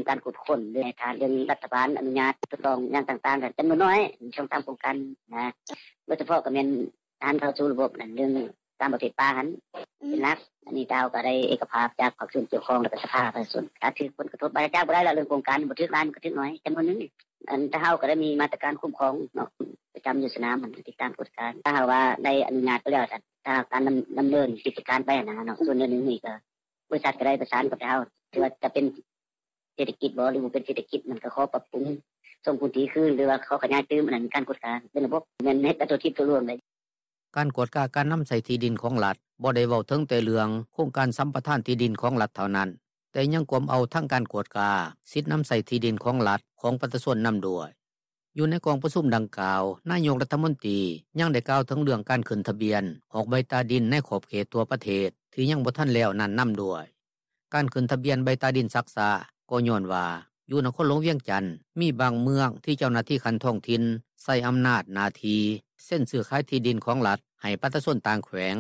ການກວດຄົ້ນ ຫຼື ໃຫ້ທາງລັດຖະບານອະນຸຍາດ ຖືກຕ້ອງຢ່າງຕ່າງໆ ກໍຈຳນວນໜ້ອຍ ມີສອງສາມໂຄງການນະ ໂດຍສະເພາະກໍແມ່ນ ການເຂົ້າສູ່ລະບົບນັ້ນ ເລື່ອງຕາມປະເພດປ່າຫັ້ນເປັນຫຼັກ. ອັນນີ້ເຮົາກໍໄດ້ເອກະພາບຈາກພາກສ່ວນກ່ຽວຂ້ອງ ແລະ ສະພາປະຊາຊົນ ຖ້າຖືກຜົນກະທົບ ບາດຈະຈັບບໍ່ໄດ້ແລ້ວ ເລື່ອງໂຄງການບໍ່ຖືກຫຼາຍ ມັນກໍຖືກໜ້ອຍ ຈຳນວນໜຶ່ງ. ອັນ ແຕ່ເຮົາກໍໄດ້ມີມາດຕະການຄຸ້ມຄອງເນາະ ປະຈຳຢູ່ສະໜາມ ຕິດຕາມກວດການ. ຖ້າຫາກວ່າໄດ້ອະນຸຍາດໄປແລ້ວ ຖ້າການດຳ ດຳເນີນກິດຈະການໄປຫັ້ນນະເນາະ ສ່ວນໜຶ່ງນີ້ກໍ ບໍລິສັດກໍໄດ້ປະສານກັບເຮົາ ຖືວ່າຈະເປັນເສດຖະກິດບໍ່ ຫຼື ບໍ່ເປັນເສດຖະກິດ ມັນກໍຂໍປັບປຸງ ສົ່ງພື້ນທີ່ຄືນ ຫຼືວ່າຂໍຂະຫຍາຍຕື່ມ ອັນນັ້ນມີການກວດກາເປັນລະບົບ ແມ່ນເຮັດກັນທົ່ວທີບທົ່ວລວງເລີຍ. ການກວດກາການນຳໃຊ້ທີ່ດິນຂອງລັດ ບໍ່ໄດ້ເວົ້າເຖິງແຕ່ເລື່ອງໂຄງການສຳປະທານທີ່ດິນຂອງລັດເທົ່ານັ້ນ, ແຕ່ຍັງກວມເອົາທັງການກວດກາສິດນຳໃຊ້ທີ່ດິນຂອງລັດ ຂອງປະຊາຊົນນຳດ້ວຍ. ຢູ່ໃນກອງປະຊຸມດັ່ງກ່າວ, ນາຍົກລັດຖະມົນຕີຍັງໄດ້ກ່າວເຖິງເລື່ອງການຂຶ້ນທະບຽນອອກໃບຕາດິນໃນຂອບເຂດທົ່ວປະເທດ ທີ່ຍັງບໍ່ທັນແລ້ວນັ້ນນຳດ້ວຍ. ການຂຶ້ນທະບຽນໃບຕາດິນຊັກຊ້າ ກໍຍ້ອນວ່າ ຢູ່ນະຄອນຫຼວງວຽງຈັນ ມີບາງເມືອງທີ່ເຈົ້າໜ້າທີ່ຂັ້ນທ້ອງຖິ່ນໃຊ້ອຳນາດໜ້າທີ່ເຊັນຊື້ຂາຍທີ່ດິນຂອງລັດໃຫ້ປະຊາຊົນຕ່າງແຂວງ,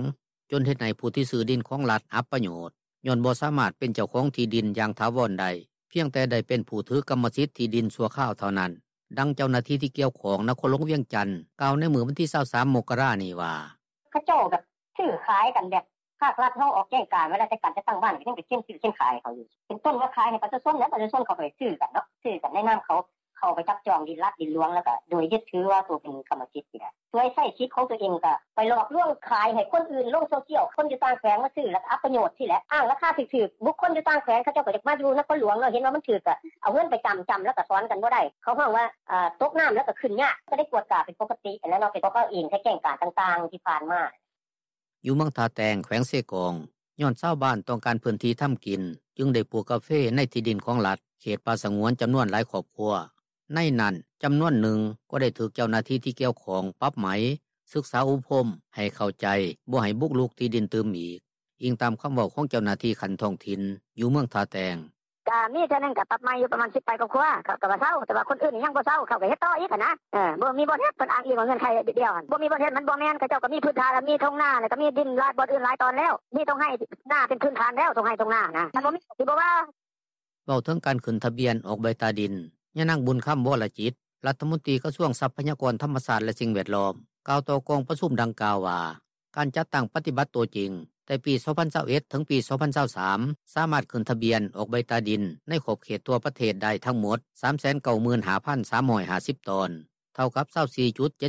ຈົນເຮັດໃຫ້ຜູ້ທີ່ຊື້ດິນຂອງລັດອັບປະໂຫຍດ ຍ້ອນບໍ່ສາມາດເປັນເຈົ້າຂອງທີ່ດິນຢ່າງຖາວອນໄດ້, ພຽງແຕ່ໄດ້ເປັນຜູ້ຖືກຳມະສິດທີ່ດິນຊົ່ວຄາວເທົ່ານັ້ນ. ດັ່ງເຈົ້າໜ້າທີ່ທີ່ກ່ຽວຂ້ອງນະຄອນຫຼວງວຽງຈັນ ກ່າວໃນມື້ວັນທີ 23 ມົກກະລານີ້ວ່າ: ເຂົາເຈົ້າກໍຊື້ຂາຍກັນແບບ ພາກລັດເຮົາອອກແຈ້ງການໄວ້ແລ້ວ ແຕ່ການຈັດຕັ້ງບ້ານກໍຍັງໄປເຊັນຊື້ເຊັນຂາຍເຂົາຢູ່ ເປັນຕົ້ນວ່າຂາຍໃຫ້ປະຊາຊົນ ແລ້ວປະຊາຊົນເຂົາກໍໄປຊື້ກັນເນາະ ຊື້ກັນໃນນາມເຂົາ ເຂົາໄປຈັບຈອງດິນລັດດິນຫຼວງ ແລ້ວກໍໂດຍຍຶດຖືວ່າໂຕເປັນກຳມະສິດນີ້ແຫຼະ ສວຍໃຊ້ສິດຂອງໂຕເອງ ກໍໄປຫຼອກລວງຂາຍໃຫ້ຄົນອື່ນລົງໂຊຊຽວ ຄົນຢູ່ຕ່າງແຂວງມາຊື້ ແລ້ວກໍອັບປະໂຫຍດຊີ້ແຫຼະ ອ້າງລາຄາຖືກໆ ບຸກຄົນຢູ່ຕ່າງແຂວງ ເຂົາເຈົ້າກໍຢາກມາຢູ່ນະຄອນຫຼວງເນາະ ເຫັນວ່າມັນຖືກ ກໍເອົາເງິນໄປຈຳ ຈຳແລ້ວກໍຖອນກັນບໍ່ໄດ້ ເຂົາຮ້ອງວ່າ ເອີ ຕົກນ້ຳແລ້ວກໍຂຶ້ນຍາກ ກໍໄດ້ກວດກາເປັນປົກກະຕິຫັ້ນແຫຼະເນາະ ເປັນເພາະເຂົາເອງໃຊ້ແຈ້ງການຕ່າງໆທີ່ຜ່ານມາ. ຢູ່ເມືອງທ່າແຕງ ແຂວງເຊກອງ ຍ້ອນຊາວບ້ານຕ້ອງການພື້ນທີ່ທຳກິນ ຈຶ່ງໄດ້ປູກກາເຟໃນທີ່ດິນຂອງລັດ ເຂດປ່າສະຫງວນ ຈຳນວນຫຼາຍຄອບຄົວ. ໃນນັ້ນ ຈຳນວນໜຶ່ງກໍໄດ້ຖືກເຈົ້າໜ້າທີ່ທີ່ກ່ຽວຂ້ອງປັບໃໝ, ສຶກສາອົບຮົມໃຫ້ເຂົ້າໃຈ ບໍ່ໃຫ້ບຸກລຸກທີ່ດິນຕື່ມອີກ, ອີງຕາມຄຳເວົ້າຂອງເຈົ້າໜ້າທີ່ຂັ້ນທ້ອງຖິ່ນຢູ່ເມືອງທ່າແຕງ. ກະມີເທື່ອໜຶ່ງກະປັບໃໝຢູ່ປະມານສິບປາຍຄອບຄົວ ເຂົາກະວ່າເຊົາ ແຕ່ວ່າຄົນອື່ນຍັງບໍ່ເຊົາ ເຂົາກະເຮັດຕໍ່ອີກຫັ້ນນະ ບໍ່ມີບ່ອນເຮັດ ເພິ່ນອ້າງອີງວ່າເງື່ອນໄຂດຽວຫັ້ນ ບໍ່ມີບ່ອນເຮັດ ມັນບໍ່ແມ່ນ ເຂົາເຈົ້າກະມີພື້ນຖານ ມີທົ່ງນາ ແລ້ວກະມີດິນຫຼາຍບ່ອນອື່ນຫຼາຍຕອນແລ້ວ ມີທົ່ງໄຮ່ນາເປັນພື້ນຖານແລ້ວ ທົ່ງໄຮ່ທົ່ງນາຫັ້ນນະ ຄັນບໍ່ມີຊິບໍ່ວ່າ. ເວົ້າເຖິງການຂຶ້ນທະບຽນອອກໃບຕາດິນ ຍານາງ ບຸນຄຳ ວໍລະຈິດ ລັດຖະມົນຕີກະຊວງຊັບພະຍາກອນທຳມະຊາດ ແລະ ສິ່ງແວດລ້ອມ ກ່າວຕໍ່ກອງປະຊຸມດັ່ງກ່າວວ່າ ການຈັດຕັ້ງປະຕິບັດຕົວຈິງ ແຕ່ປີ 2021 ເຖິງປີ 2023 ສາມາດຂຶ້ນທະບຽນອອກໃບຕາດິນໃນຂອບເຂດທົ່ວປະເທດໄດ້ທັງໝົດ 395,350 ຕອນ ເທົ່າກັບ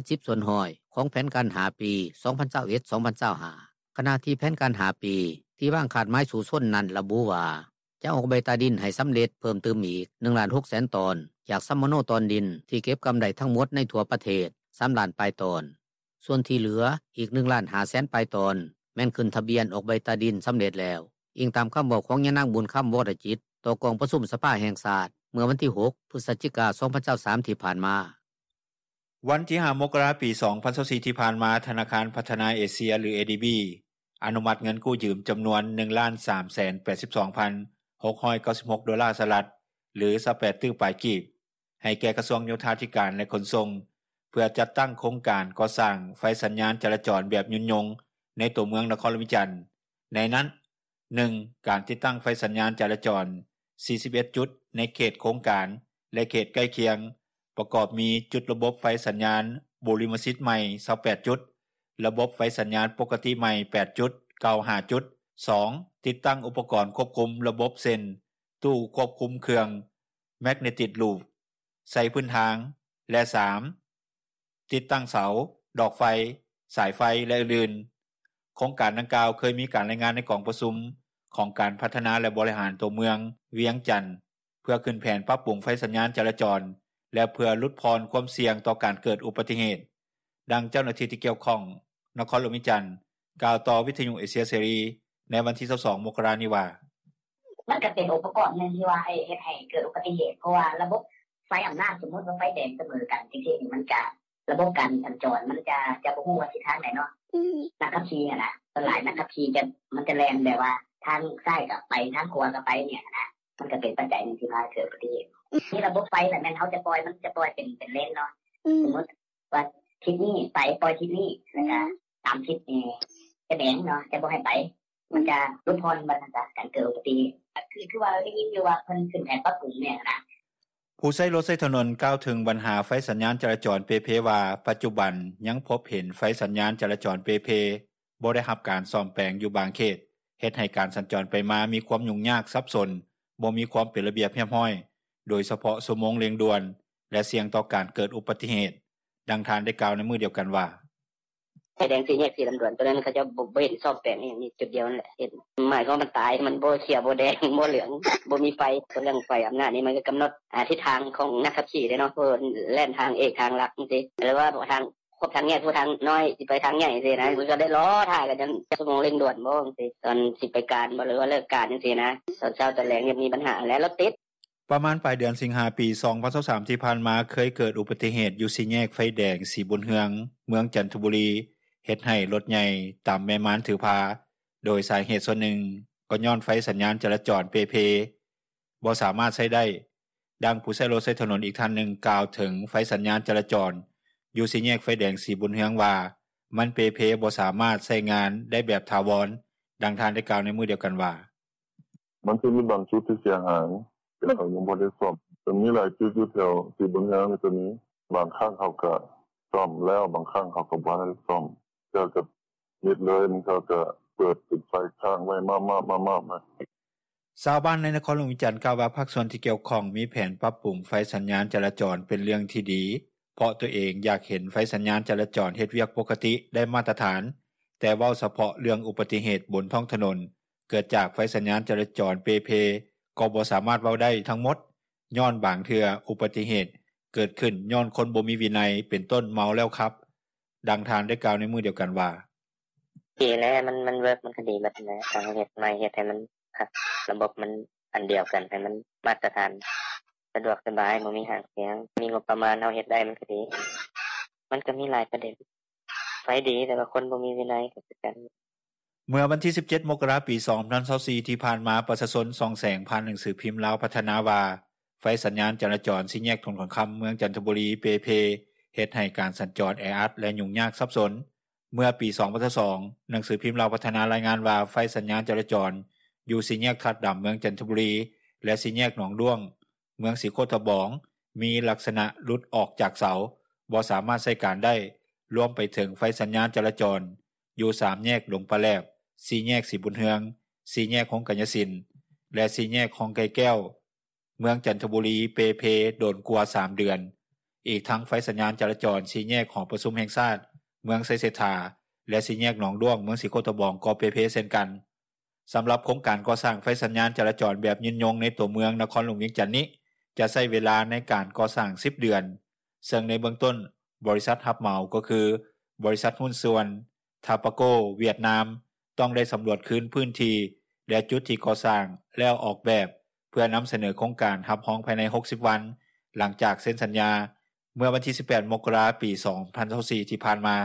24.70% ຂອງແຜນການ ຫ້າ ປີ 2021-2025 ຂະນະທີ່ແຜນການ ຫ້າ ປີ ທີ່ວາງຄາດໝາຍສູ້ຊົນນັ້ນລະບຸວ່າ ຈະອອກໃບຕາດິນໃຫ້ສຳເລັດເພີ່ມຕື່ມອີກ ໜຶ່ງລ້ານຫົກແສນຕອນ ຈາກສຳມະໂນຕອນດິນທີ່ເກັບກຳໄດ້ທັງໝົດໃນທົ່ວປະເທດ ສາມລ້ານປາຍຕອນ. ສ່ວນທີ່ເຫຼືອອີກ ໜຶ່ງລ້ານຫ້າແສນປາຍຕອນ ແມ່ນຂຶ້ນທະບຽນອອກໃບຕາດິນສຳເລັດແລ້ວ, ອີງຕາມຄຳເວົ້າຂອງຍານາງ ບຸນຄຳ ວໍລະຈິດ ຕໍ່ກອງປະຊຸມສະພາແຫ່ງຊາດ ເມື່ອວັນທີ ຫົກ ພຶສຈິກາ ສອງພັນຊາວສາມ ທີ່ຜ່ານມາ. ວັນທີ ຫ້າ ມົກກະລາ ປີ ສອງພັນຊາວສີ່ ທີ່ຜ່ານມາ, ທະນາຄານພັດທະນາເອເຊຍ ຫຼື ເອດີບີ ອະນຸມັດເງິນກູ້ຢືມຈຳນວນ ໜຶ່ງລ້ານສາມແສນແປດສິບສອງພັນຫົກຮ້ອຍເກົ້າສິບຫົກໂດລາສະຫະລັດ ຫຼື ຊາວແປດຕື້ປາຍກີບ ໃຫ້ແກ່ກະຊວງໂຍທາທິການ ແລະ ຂົນສົ່ງ ເພື່ອຈັດຕັ້ງໂຄງການກໍ່ສ້າງໄຟສັນຍານຈະລາຈອນແບບຍືນຍົງໃນຕົວເມືອງນະຄອນຫຼວງວຽງຈັນ. ໃນນັ້ນ, ໜຶ່ງ ການຕິດຕັ້ງໄຟສັນຍານຈະລາຈອນ ສີ່ສິບເອັດຈຸດ ໃນເຂດໂຄງການ ແລະ ເຂດໃກ້ຄຽງ, ປະກອບມີຈຸດລະບົບໄຟສັນຍານບູລິມະສິດໃໝ່ ຊາວແປດຈຸດ, ລະບົບໄຟສັນຍານປົກກະຕິໃໝ່ ແປດຈຸດ, ເກົ່າ ຫ້າຈຸດ. ສອງ ຕິດຕັ້ງອຸປະກອນຄວບຄຸມລະບົບ ເຊັ່ນ ຕູ້ຄວບຄຸມເຄື່ອງ ແມັກເນຕິກລູບ ໃສ່ພື້ນທາງ ແລະ ສາມ ຕິດຕັ້ງເສົາ, ດອກໄຟ, ສາຍໄຟ ແລະ ອື່ນໆ. ໂຄງການດັ່ງກ່າວເຄີຍມີການລາຍງານໃນກອງປະຊຸມຂອງການພັດທະນາ ແລະ ບໍລິຫານຕົວເມືອງວຽງຈັນ ເພື່ອຂຶ້ນແຜນປັບປຸງໄຟສັນຍານຈະລາຈອນ ແລະ ເພື່ອຫຼຸດຜ່ອນຄວາມສ່ຽງຕໍ່ການເກີດອຸບັດຕິເຫດ. ດັ່ງເຈົ້າໜ້າທີ່ທີ່ກ່ຽວຂ້ອງນະຄອນຫຼວງວຽງຈັນ ກ່າວຕໍ່ວິທຍຸເອເຊຍເສລີໃນວັນທີ ຊາວສອງ ມົກກະລານີ້ວ່າ: ມັນກໍເປັນອຸປະກອນໜຶ່ງທີ່ວ່າເຮັດໃຫ້ເກີດອຸບັດຕິເຫດ ເພາະວ່າລະບົບໄຟອຳນາດ ສົມມຸດວ່າໄຟແດງສະເໝີກັນຈັ່ງຊີ້ນີ້ ມັນຈະ ລະບົບການສັນຈອນມັນຈະ ຈະບໍ່ຮູ້ວ່າທິດທາງໃດເນາະ. ອືມ ນັກຂັບຂີ່ຫັ້ນນະ ສ່ວນຫຼາຍນັກຂັບຂີ່ຈະ ມັນຈະແລ່ນແບບວ່າທາງຊ້າຍກໍໄປ ທາງຂວາກໍໄປນີ້ຫັ້ນນະ ມັນກໍເປັນປັດໄຈໜຶ່ງທີ່ພາໃຫ້ເກີດອຸບັດຕິເຫດ. ອືມ ມີລະບົບໄຟແລ້ວແມ່ນເຮົາຈະປ່ອຍ ມັນຈະປ່ອຍເປັນ ເປັນເລນເນາະ. ອືມ ສົມມຸດ ວ່າທິດນີ້ໄປ ປ່ອຍທິດນີ້ ແລ້ວກໍ ອືມ ຕາມທິດນີ້ຈະແດງເນາະ ຈະບໍ່ໃຫ້ໄປ ມັນຈະຫຼຸດຜ່ອນບັນດາການເກີດອຸບັດຕິເຫດ. ຄື ຄືວ່າໄດ້ຍິນຢູ່ວ່າເພິ່ນຂຶ້ນແຜນປັບປຸງແມ່ນນະ. ຜູ້ໃຊ້ລົດໃຊ້ຖະໜົນກ່າວເຖິງບັນຫາໄຟສັນຍານຈະລາຈອນເປ່ເພວ່າ ປັດຈຸບັນຍັງພົບເຫັນໄຟສັນຍານຈະລາຈອນເປ່ເພ ບໍ່ໄດ້ຮັບການສ້ອມແປງຢູ່ບາງເຂດ ເຮັດໃຫ້ການສັນຈອນໄປມາມີຄວາມຫຍຸ້ງຍາກສັບສົນ, ບໍ່ມີຄວາມເປັນລະບຽບຮຽບຮ້ອຍ ໂດຍສະເພາະຊົ່ວໂມງເລັ່ງດ່ວນ ແລະ ສ່ຽງຕໍ່ການເກີດອຸບັດຕິເຫດ. ດັ່ງທ່ານໄດ້ກ່າວໃນມື້ດຽວກັນວ່າ: ໄຟແດງສີ່ແຍກສີລຳດວນ ໂຕນັ້ນເຂົາເຈົ້າບໍ່ ບໍ່ເຫັນສ້ອມແປງອີ່ຫຍັງ ມີຈຸດດຽວນັ້ນແຫຼະເຫັນ ໝາຍຄວາມວ່າມັນຕາຍ ມັນບໍ່ຂຽວ ບໍ່ແດງ ບໍ່ເຫຼືອງ ບໍ່ມີໄຟ. ສ່ວນເລື່ອງໄຟອຳນາດນີ້ ມັນກໍກຳນົດ ອາ ທິດທາງຂອງນັກຂັບຂີ່ເດ້ເນາະ ເພາະວ່າແລ່ນທາງເອກທາງຫຼັກຈັ່ງຊີ້ ຫຼືວ່າທາງ ຄອບທາງແຍກ ຜູ້ທາງນ້ອຍຊິໄປທາງໃຫຍ່ຈັ່ງຊີ້ນະ ມັນກໍໄດ້ລໍຖ້າກັນຈົນຊົ່ວໂມງເລັ່ງດ່ວນບໍ່ຈັ່ງຊີ້ ຕອນຊິໄປການບໍ່ ຫຼືວ່າເລີກການຈັ່ງຊີ້ນະ ຕອນເຊົ້າຕອນແລງຍັງມີບັນຫາແຫຼະ ລົດຕິດ. ປະມານປາຍເດືອນສິງຫາ ປີສອງພັນຊາວສາມ ທີ່ຜ່ານມາ ເຄີຍເກີດອຸບັດຕິເຫດຢູ່ສີ່ແຍກໄຟແດງສີບຸນເຮືອງ ເມືອງຈັນທະບູລີ ເຮັດໃຫ້ລົດໃຫຍ່ຕຳແມ່ມານຖືພາ ໂດຍສາເຫດສ່ວນໜຶ່ງກໍຍ້ອນໄຟສັນຍານຈະລາຈອນເປ່ເພ ບໍ່ສາມາດໃຊ້ໄດ້. ດັ່ງຜູ້ໃຊ້ລົດໃຊ້ຖະໜົນອີກທ່ານໜຶ່ງກ່າວເຖິງໄຟສັນຍານຈະລາຈອນຢູ່ສີ່ແຍກໄຟແດງສີບຸນເຮືອງວ່າ ມັນເປ່ເພ ບໍ່ສາມາດໃຊ້ງານໄດ້ແບບຖາວອນ. ດັ່ງທ່ານໄດ້ກ່າວໃນມື້ດຽວກັນວ່າ: ມັນຈະມີບາງຈຸດທີ່ເສຍຫາຍ ເຂົາຍັງບໍ່ໄດ້ສ້ອມ ກໍມີຫຼາຍຈຸດຢູ່ແຖວສີບຸນເຮືອງນີ້ກໍມີ ບາງຄັ້ງເຂົາກໍສ້ອມແລ້ວ ບາງຄັ້ງເຂົາກໍບໍ່ທັນໄດ້ສ້ອມ ເທື່ອກໍມິດເລີຍ ບາງເທື່ອກໍເປີດເປັນໄຟຄ້າງໄວ້ມາບໆໆໆ. ຊາວບ້ານໃນນະຄອນຫຼວງວຽງຈັນກ່າວວ່າ ພາກສ່ວນທີ່ກ່ຽວຂ້ອງມີແຜນປັບປຸງໄຟສັນຍານຈະລາຈອນເປັນເລື່ອງທີ່ດີ ເພາະຕົວເອງຢາກເຫັນໄຟສັນຍານຈະລາຈອນເຮັດວຽກປົກກະຕິໄດ້ມາດຕະຖານ, ແຕ່ເວົ້າສະເພາະເລື່ອງອຸບັດຕິເຫດບົນທ້ອງຖະໜົນ ເກີດຈາກໄຟສັນຍານຈະລາຈອນເປ່ເພ ກໍບໍ່ສາມາດເວົ້າໄດ້ທັງໝົດ ຍ້ອນບາງເທື່ອອຸບັດຕິເຫດເກີດຂຶ້ນຍ້ອນຄົນບໍ່ມີວິໄນ ເປັນຕົ້ນເມົາແລ້ວຂັບ. ດັ່ງທ່ານໄດ້ກ່າວໃນມື້ດຽວກັນວ່າ: ດີແລ້ວ ມັນ ມັນເວີກ ມັນກໍດີເບິດຫັ້ນແຫຼະ ຖ້າເຮົາເຮັດໃໝ່ ເຮັດໃຫ້ມັນຄັກ ລະບົບມັນອັນດຽວກັນ ໃຫ້ມັນມາດຕະຖານ ສະດວກສະບາຍ ບໍ່ມີຫາງສຽງ ມີງົບປະມານ ເຮົາເຮັດໄດ້ມັນກໍດີ. ມັນກໍມີຫຼາຍປະເດັນ ໄຟດີ ແຕ່ວ່າຄົນບໍ່ມີວິໄນກໍຄືກັນ. ເມື່ອວັນທີ ສິບເຈັດ ມົກກະລາ ປີສອງພັນຊາວສີ່ ທີ່ຜ່ານມາ ປະຊາຊົນຊ່ອງແສງຜ່ານໜັງສືພິມລາວພັດທະນາວ່າ ໄຟສັນຍານຈະລາຈອນສີ່ແຍກຖະໜົນຂົນຄຳ ເມືອງຈັນທະບູລີ ເປ່ເພ ເຮັດໃຫ້ການສັນຈອນແອອັດ ແລະ ຫຍຸ້ງຍາກສັບສົນ. ເມື່ອປີສອງພັນຊາວສອງ ໜັງສືພິມລາວພັດທະນາລາຍງານວ່າ ໄຟສັນຍານຈະລາຈອນຢູ່ສີ່ແຍກທາດດຳ ເມືອງຈັນທະບູລີ ແລະ ສີ່ແຍກໜອງດ້ວງ ເມືອງສີໂຄດຕະບອງ ມີລັກສະນະຫຼຸດອອກຈາກເສົາ ບໍ່ສາມາດໃຊ້ການໄດ້ ລວມໄປເຖິງໄຟສັນຍານຈະລາຈອນຢູ່ສາມແຍກດົງປາແຫຼບ, ສີ່ແຍກສີບຸນເຮືອງ, ສີ່ແຍກໂຮງກາຍຍະສິນ ແລະ ສີ່ແຍກຮ່ອງໄກ່ແກ້ວ ເມືອງຈັນທະບູລີ ເປ່ເພ ດົນກວ່າສາມເດືອນ. ອີກທັງໄຟສັນຍານຈະລາຈອນສີ່ແຍກຫໍປະຊຸມແຫ່ງຊາດ ເມືອງໄຊເສດຖາ ແລະ ສີ່ແຍກໜອງດ້ວງ ເມືອງສີໂຄດຕະບອງ ກໍເປ່ເພເຊັ່ນກັນ. ສຳລັບໂຄງການກໍ່ສ້າງໄຟສັນຍານຈະລາຈອນແບບຍືນຍົງໃນຕົວເມືອງນະຄອນຫຼວງວຽງຈັນນີ້ ຈະໃຊ້ເວລາໃນການກໍ່ສ້າງສິບເດືອນ, ເຊິ່ງໃນເບື້ອງຕົ້ນ ບໍລິສັດຮັບເໝົາກໍຄື ບໍລິສັດຫຸ້ນສ່ວນ ທາປາໂກ ຫວຽດນາມ ຕ້ອງໄດ້ສຳຫຼວດຄືນພື້ນທີ່ ແລະ ຈຸດທີ່ກໍ່ສ້າງ ແລ້ວອອກແບບ ພື່ອນຳສະເໜີໂຄງການຮັບຮອງພາຍໃນ ຫົກສິບ ວັນ ຫຼັງຈາກເຊັນສັນຍາ ເມື່ອວັນທີ ສິບແປດ ມົກກະລາ ປີ ສອງພັນຊາວສີ່ ທີ່ຜ່ານມາ.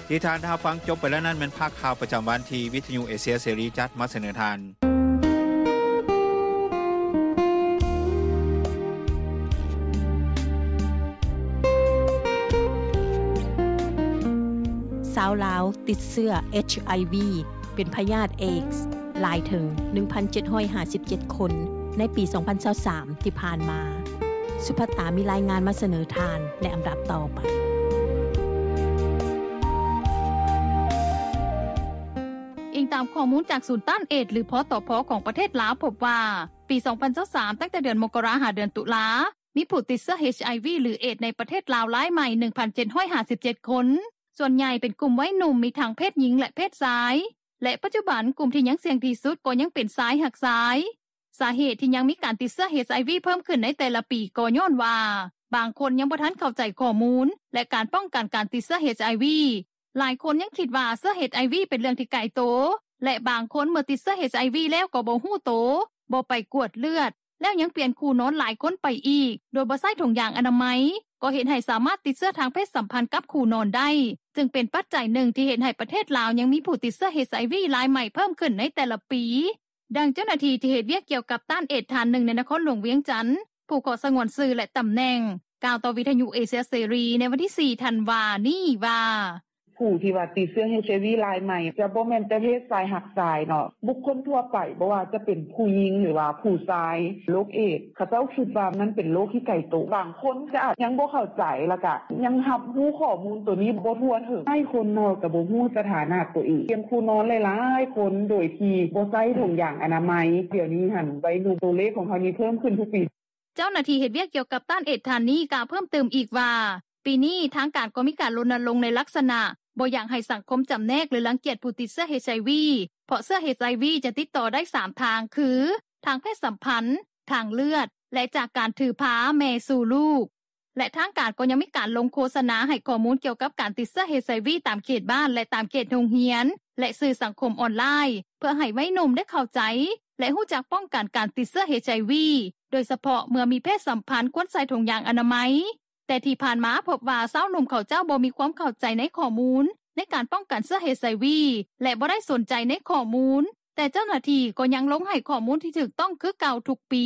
ທີ່ທ່ານໄດ້ຮັບຟັງຈົບໄປແລ້ວນັ້ນ ແມ່ນພາກຂ່າວປະຈຳວັນທີ່ວິທະຍຸເອເຊຍເສລີຈັດມາສະເໜີທ່ານ. ຊາວລາວຕິດເຊື້ອ ເອັດໄອວີ ເປັນພະຍາດເອດສ໌ ຫຼາຍເຖິງ ໜຶ່ງພັນເຈັດຮ້ອຍຫ້າສິບເຈັດ ຄົນ ໃນປີ ສອງພັນຊາວສາມ ທີ່ຜ່ານມາ. ສຸພັດຕາມີລາຍງານມາສະເໜີທ່ານໃນອຳດັບຕໍ່ໄປ. ອີງຕາມຂໍ້ມູນຈາກສູນຕ້ານເອດສ໌ ຫຼື ພຕພ ຂອງປະເທດລາວ ພົບວ່າ ປີ ສອງພັນຊາວສາມ ຕັ້ງແຕ່ເດືອນມົກກະລາ ຫາເດືອນຕຸລາ ມີຜູ້ຕິດເຊື້ອ ເອັດໄອວີ ຫຼື ເອດສ໌ ໃນປະເທດລາວລາຍໃໝ່ ໜຶ່ງພັນເຈັດຮ້ອຍຫ້າສິບເຈັດ ຄົນ, ສ່ວນໃຫຍ່ເປັນກຸ່ມໄວໜຸ່ມ ມີທັງເພດຍິງ ແລະ ເພດຊາຍ ແລະ ປັດຈຸບັນ ກຸ່ມທີ່ຍັງສ່ຽງທີ່ສຸດກໍຍັງເປັນຊາຍຮັກຊາຍ. ສາເຫດທີ່ຍັງມີການຕິດເຊື້ອ ເອັດໄອວີ ເພີ່ມຂຶ້ນໃນແຕ່ລະປີ ກໍຍ້ອນວ່າ ບາງຄົນຍັງບໍ່ທັນເຂົ້າໃຈຂໍ້ມູນ ແລະ ການປ້ອງກັນການຕິດເຊື້ອ ເອັດໄອວີ. ຫຼາຍຄົນຍັງຄິດວ່າເຊື້ອ ເອັດໄອວີ ເປັນເລື່ອງທີ່ໄກໂຕ ແລະ ບາງຄົນເມື່ອຕິດເຊື້ອ ເອັດໄອວີ ແລ້ວກໍບໍ່ຮູ້ໂຕ, ບໍ່ໄປກວດເລືອດ ແລ້ວຍັງປ່ຽນຄູ່ນອນຫຼາຍຄົນໄປອີກ ໂດຍບໍ່ໃຊ້ຖົງຢາງອະນາໄມ ກໍເຮັດໃຫ້ສາມາດຕິດເຊື້ອທາງເພດສຳພັນກັບຄູ່ນອນໄດ້, ຈຶ່ງເປັນປັດໄຈໜຶ່ງທີ່ເຮັດໃຫ້ປະເທດລາວຍັງມີຜູ້ຕິດເຊື້ອ ເອັດໄອວີ ລາຍໃໝ່ເພີ່ມຂຶ້ນໃນແຕ່ລະປີ. ດັ່ງເຈົ້າໜ້າທີ່ທີ່ເຮັດວຽກກ່ຽວກັບຕ້ານເອດສ໌ ທ່ານໜຶ່ງໃນນະຄອນຫຼວງວຽງຈັນ ຜູ້ຂໍສະຫງວນຊື່ ແລະ ຕຳແໜ່ງ ກ່າວຕໍ່ວິທະຍຸເອເຊຍເສລີໃນວັນທີ ສີ່ ທັນວານີ້ວ່າ: ຜູ້ທີ່ວ່າຕິດເຊື້ອ ເອັດໄອວີ ລາຍໃໝ່ ຈະບໍ່ແມ່ນແຕ່ເພດຊາຍຮັກຊາຍເນາະ, ບຸກຄົນທົ່ວໄປ ບໍ່ວ່າຈະເປັນຜູ້ຍິງ ຫຼືວ່າຜູ້ຊາຍ. ໂລກເອດສ໌ ເຂົາເຈົ້າຄິດວ່າມັນເປັນໂລກທີ່ໄກໂຕ, ບາງຄົນກໍອາດຍັງບໍ່ເຂົ້າໃຈ ແລ້ວກໍຍັງຮັບຮູ້ຂໍ້ມູນໂຕນີ້ບໍ່ທົ່ວເຖິງ. ຫຼາຍຄົນເນາະ ກໍບໍ່ຮູ້ສະຖານະໂຕເອງ, ປ່ຽນຄູ່ນອນຫຼາຍໆຄົນໂດຍທີ່ບໍ່ໃຊ້ຖົງຢາງອະນາໄມ. ດຽວນີ້ຫັ້ນ ໄວໜຸ່ມ ໂຕເລກຂອງເຮົານີ້ເພີ່ມຂຶ້ນທຸກປີ. ເຈົ້າໜ້າທີ່ເຮັດວຽກກ່ຽວກັບຕ້ານເອດສ໌ ທ່ານນີ້ ກ່າວເພີ່ມຕື່ມອີກວ່າ ປີນີ້ທາງການກໍມີການລົນນະລົງໃນລັກສະນະ ບໍ່ຢາກໃຫ້ສັງຄົມຈຳແນກ ຫຼື ລັງກຽດຜູ້ຕິດເຊື້ອ ເອັດໄອວີ ເພາະເຊື້ອ ເອັດໄອວີ ຈະຕິດຕໍ່ໄດ້ ສາມ ທາງ ຄື ທາງເພດສຳພັນ, ທາງເລືອດ ແລະ ຈາກການຖືພາແມ່ສູ່ລູກ. ແລະ ທາງການກໍຍັງມີການລົງໂຄສະນາໃຫ້ຂໍ້ມູນກ່ຽວກັບການຕິດເຊື້ອ ເອັດໄອວີ ຕາມເຂດບ້ານ ແລະ ຕາມເຂດໂຮງຮຽນ ແລະ ສື່ສັງຄົມອອນລາຍ ເພື່ອໃຫ້ໄວໜຸ່ມໄດ້ເຂົ້າໃຈ ແລະ ຮູ້ຈັກປ້ອງກັນການຕິດເຊື້ອ ເອັດໄອວີ ໂດຍສະເພາະເມື່ອມີເພດສຳພັນຄວນໃສ່ຖົງຢາງອະນາໄມ. ແຕ່ທີ່ຜ່ານມາພົບວ່າຊາວໜຸ່ມເຂົາເຈົ້າບໍ່ມີຄວາມເຂົ້າໃຈໃນຂໍ້ມູນໃນການປ້ອງກັນເຊື້ອ ເອັດໄອວີ ແລະ ບໍ່ໄດ້ສົນໃຈໃນຂໍ້ມູນ, ແຕ່ເຈົ້າໜ້າທີ່ກໍຍັງລົງໃຫ້ຂໍ້ມູນທີ່ຖືກຕ້ອງຄືເກົ່າທຸກປີ.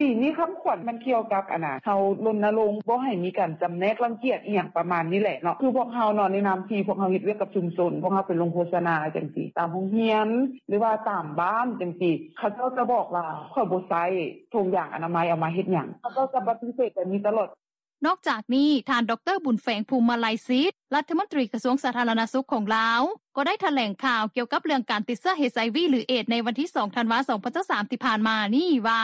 ປີນີ້ຄຳຂວັນມັນກ່ຽວກັບ ອັນນ່າ ເຮົາລົນນະລົງບໍ່ໃຫ້ມີການຈຳແນກລັງກຽດອີ່ຫຍັງປະມານນີ້ແຫຼະເນາະ. ຄືພວກເຮົາເນາະ ໃນນາມທີ່ພວກເຮົາເຮັດວຽກກັບຊຸມຊົນ ພວກເຮົາໄປລົງໂຄສະນາຈັ່ງຊີ້ ຕາມໂຮງຮຽນ ຫຼືວ່າຕາມບ້ານຈັ່ງຊີ້ ເຂົາເຈົ້າຈະບອກວ່າ ຂ້ອຍບໍ່ໃຊ້ຖົງຢາງອະນາໄມ ເອົາມາເຮັດຫຍັງ? ເຂົາເຈົ້າຈະປະຕິເສດແບບນີ້ຕະຫຼອດ. ນອກຈາກນີ້ ທ່ານ ດຣ. ບຸນແຝງ ພູມມະໄລສິດ ລັດຖະມົນຕີກະຊວງສາທາລະນະສຸກຂອງລາວ ກໍໄດ້ຖະແຫຼງຂ່າວກ່ຽວກັບເລື່ອງການຕິດເຊື້ອ ເອັດໄອວີ ຫຼື ເອດສ໌ ໃນວັນທີ ສອງ ທັນວາ ສອງພັນຊາວສາມ ທີ່ຜ່ານມານີ້ວ່າ